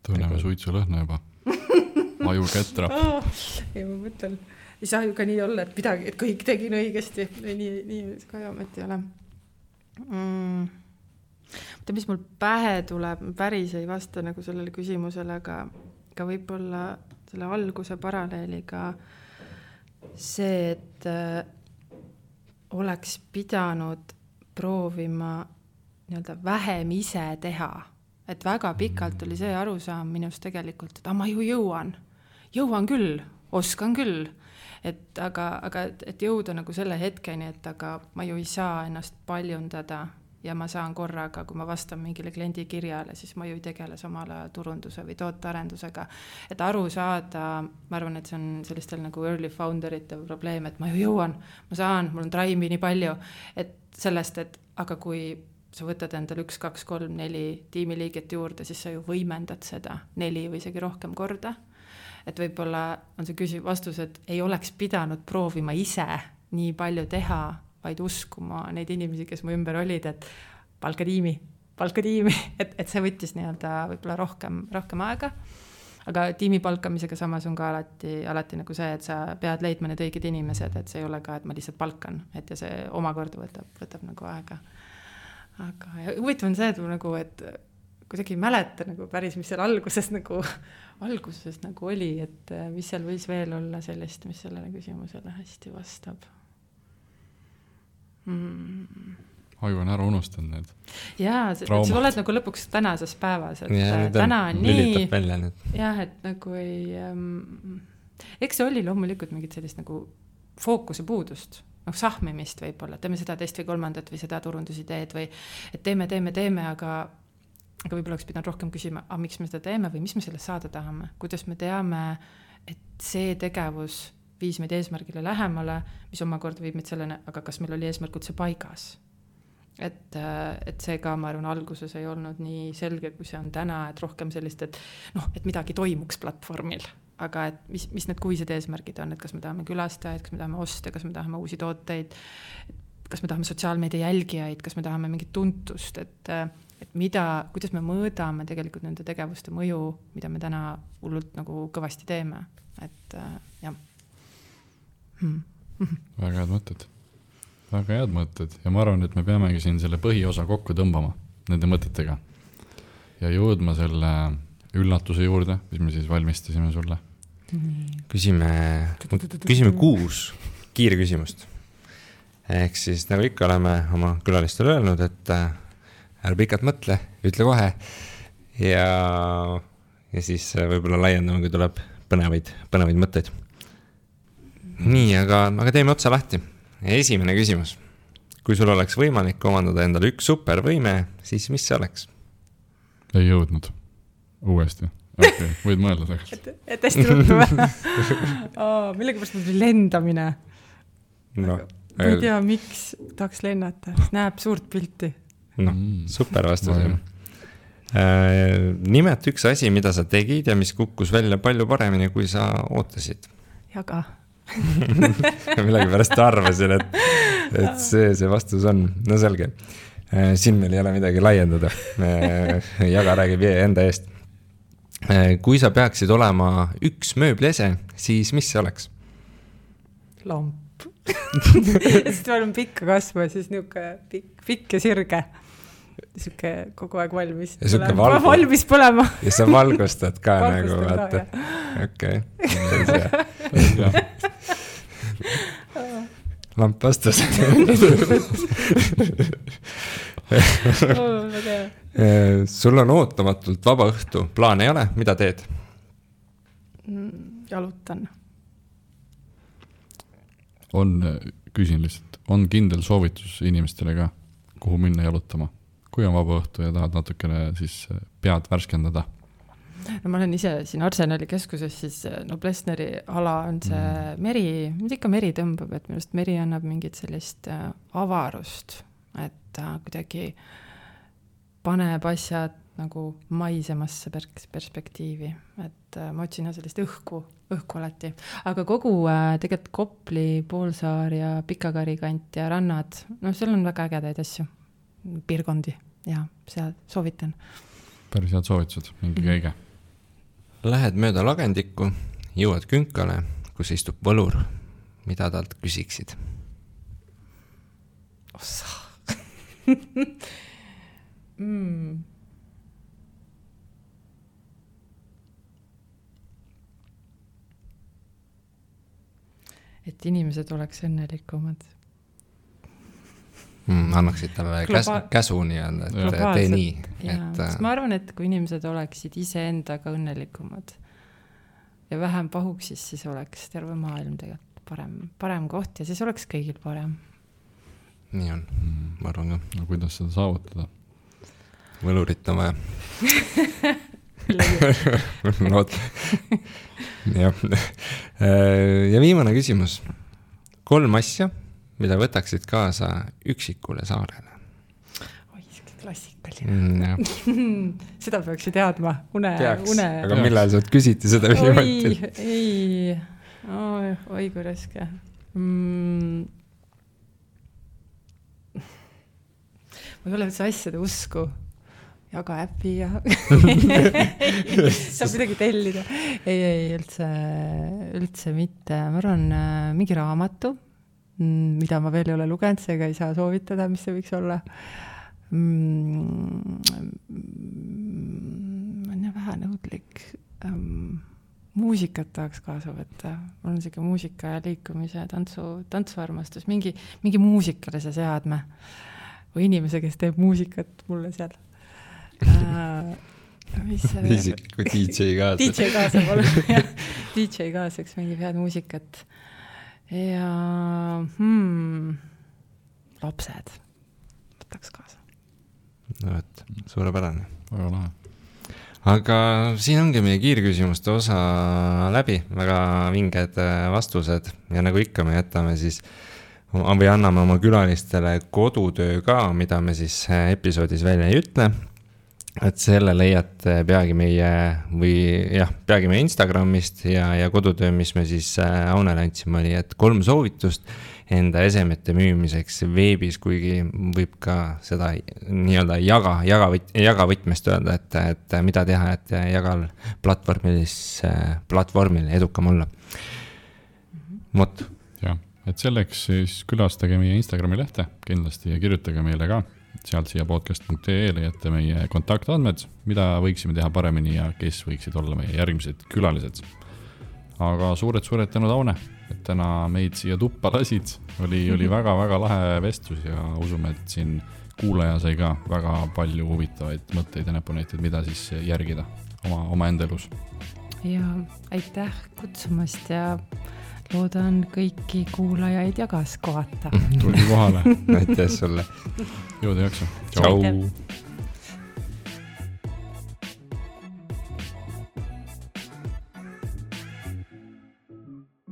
S1: Tunneme suitsu lõhna juba. Aju ketrab.
S3: Ei, ma mõtlen. Ei saa ju ka nii olla, et midagi, et kõik tegin õigesti. Nii ka jamet ei ole. Mõtle, mis mul pähe tuleb, päris ei vasta nagu sellele küsimusele, aga võib-olla selle alguse paralleeliga see, et oleks pidanud proovima nii-öelda vähem ise teha. Et väga pikalt oli see arusaam minust tegelikult, et ma ju jõuan küll, oskan küll. Aga jõuda nagu selle hetkeni, et aga ma ju ei saa ennast paljundada ja ma saan korraga, kui ma vastan mingile kliendi kirjale, siis ma ju ei tegele samale turunduse või tootearendusega. Et aru saada, ma arvan, et see on sellistel nagu early founderite probleem, et ma ju jõuan, ma saan, mul on drive'i nii palju, et sellest, et aga kui sa võtad endal 1, 2, 3, 4 tiimiliiget juurde, siis sa ju võimendad seda 4 või isegi rohkem korda. Et võib-olla on see vastus, et ei oleks pidanud proovima ise nii palju teha, vaid uskuma neid inimesi, kes mu ümber olid, et palka tiimi, et see võttis nii-öelda võib-olla rohkem aega. Aga tiimi palkamisega samas on ka alati nagu see, et sa pead leidma need õiged inimesed, et see ei ole ka, et ma lihtsalt palkan, et ja see omakorda võtab nagu aega. Aga huvitav on see, et nagu, et kuidagi ei mäleta nagu päris, mis seal alguses nagu oli, et mis seal võis veel olla sellist, mis sellele küsimusele hästi vastab.
S1: Aju on ära unustanud need.
S3: Jaa, sa oled nagu lõpuks tänases päevas, et
S2: ja,
S3: täna on nii.
S2: Jah,
S3: et nagu ei... Eks see oli loomulikult mingit sellist nagu fookuse puudust, sahmimist võib-olla, teeme seda teist või kolmandat või seda turundusideed või et teeme, aga võib-olla oleks pidanud rohkem küsima, miks me seda teeme või mis me sellest saada tahame, kuidas me teame, et see tegevus viis meid eesmärgile lähemale, mis omakorda viib meid sellene, aga kas meil oli eesmärk üldse paigas. Et see ka, ma arvan, alguses ei olnud nii selge, kui see on täna, et rohkem sellist, et midagi toimuks platvormil, aga et mis need kuised eesmärgid on, et kas me tahame külastajaid, kas me tahame oste, kas me tahame uusi tooteid, kas me tahame sotsiaalmeedia jälgijaid, kas me tahame mingit tuntust, et kuidas me mõõdame tegelikult nende tegevuste mõju, mida me täna hullult nagu kõvasti teeme, et jah.
S1: Väga head mõtted ja ma arvan, et me peamegi siin selle põhiosa kokku tõmbama nende mõtetega ja jõudma selle üllatuse juurde, mis me siis valmistasime sulle.
S2: Küsime 6 kiirküsimust. Ehk siis nagu ikka oleme oma külalistele öelnud, et ära pikalt mõtle, ütle kohe ja siis võib-olla laiendame, kui tuleb põnevaid mõtteid. Nii, aga teeme otsa lahti. Esimene küsimus. Kui sul oleks võimalik omandada endale üks supervõime, siis mis see oleks?
S1: Ei jõudnud. Uuesti. Okay, võid mõelda tegelikult.
S3: Et hästi ruttu või? Millega pärast mul lendamine? Ma ei tea, miks tahaks lennata. Näeb suurt pilti.
S2: Super vastus. Nimeta üks asi, mida sa tegid ja mis kukkus välja palju paremini, kui sa ootasid.
S3: Jaga.
S2: Millegi pärast arvasin, et see vastus on. No selge. Siin meil ei ole midagi laiendada. Jaga räägib enda eest. Kui sa peaksid olema üks mööbliese, siis mis see oleks?
S3: Lamp. Sest ma olen pikka kasva, siis niuke pikk ja sirge. Siuke kogu aeg valmis. Valmis põlema.
S2: Ja sa valgustad ka nagu, vaata. Okei. Lamp vastas. Sul on ootamatult vaba õhtu. Plaan ei ole? Mida teed?
S3: Jalutan.
S1: Küsin lihtsalt, on kindel soovitus inimestele ka, kuhu minna jalutama? Kui on vaba õhtu ja tahad natukene siis pead värskendada?
S3: No ma olen ise siin Arsenali keskuses, siis Noblessneri ala on see meri, mida ikka meri tõmbab, et minust meri annab mingit sellist avarust, et kuidagi paneb asjad nagu maisemasse perspektiivi, et ma otsin sellist õhku alati. Aga kogu tegelikult Kopli, Poolsaar ja Pikakari kant ja rannad, no seal on väga ägedaid asju, piirkondi ja seal soovitan.
S1: Päris head soovitused, mingi käige.
S2: Lähed mööda lagendikku, jõuad künkale, kus istub võlur. Mida talt küsiksid?
S3: Ossa. Et inimesed oleks õnnelikumad.
S2: Annaksid talle käsu nii-öelda, et tee nii.
S3: Sest ma arvan, et kui inimesed oleksid ise endaga õnnelikumad ja vähem pahuksis, siis oleks terve maailm tegelikult parem koht ja siis oleks kõigil parem.
S2: Nii on, ma arvan ka.
S1: No kuidas seda saavutada?
S2: Võlurit on vaja. Ja viimane küsimus. 3 asja, mida võtaksid kaasa üksikule saarele?
S3: Oi, klassikaline. Seda peaks ju teadma.
S2: Aga millal sa küsiti seda viimati?
S3: Oi, kui raske. Ma ei ole üldse asjade usku. Jaga äpi ja saab midagi tellida. Ei, üldse mitte. Ma arvan, mingi raamatu, mida ma veel ei ole lugenud, seega ei saa soovitada, mis see võiks olla. Ma olen vähe nõudlik. Muusikat tahaks kaasa võtta. Mul on siuke muusika ja liikumise, tantsuarmastus. Mingi muusikale see seadme. Või inimese, kes teeb muusikat mulle seal.
S2: Kui DJ kaasa.
S3: DJ kaasa pole. DJ kaasaks mingi head muusikat. Ja lapsed võtaks kaasa.
S2: No, et suurepärane.
S1: Väga lahe.
S2: Aga siin ongi meie kiirküsimuste osa läbi. Väga vinged vastused. Ja nagu ikka me jätame siis või anname oma külalistele kodutöö ka, mida me siis episoodis välja ei ütle. Et selle leiate peagi meie Instagramist ja kodutöö, mis me siis Aunele andsime, oli, et 3 soovitust enda esemete müümiseks veebis, kuigi võib ka seda nii-öelda jagavõtmest öelda, et mida teha, et jagal platvormil edukam olla. Mot.
S1: Jah, et selleks siis külastage meie Instagrami lehte kindlasti ja kirjutage meile ka. Sealt siia podcast.ee leiate meie kontaktandmed, mida võiksime teha paremini ja kes võiksid olla meie järgmised külalised. Aga suured tänud, Aune, et täna meid siia tuppa lasid. Oli väga lahe vestlus ja usume, et siin kuulaja sai ka väga palju huvitavaid mõtteid ja näpunäiteid, mida siis järgida oma enda elus.
S3: Ja aitäh kutsumast ja loodan kõiki kuulajaid ja kaas kohata.
S1: Tulgi kohale.
S2: Aitäh sulle.
S1: Jõuda jaksa.
S2: Tšau.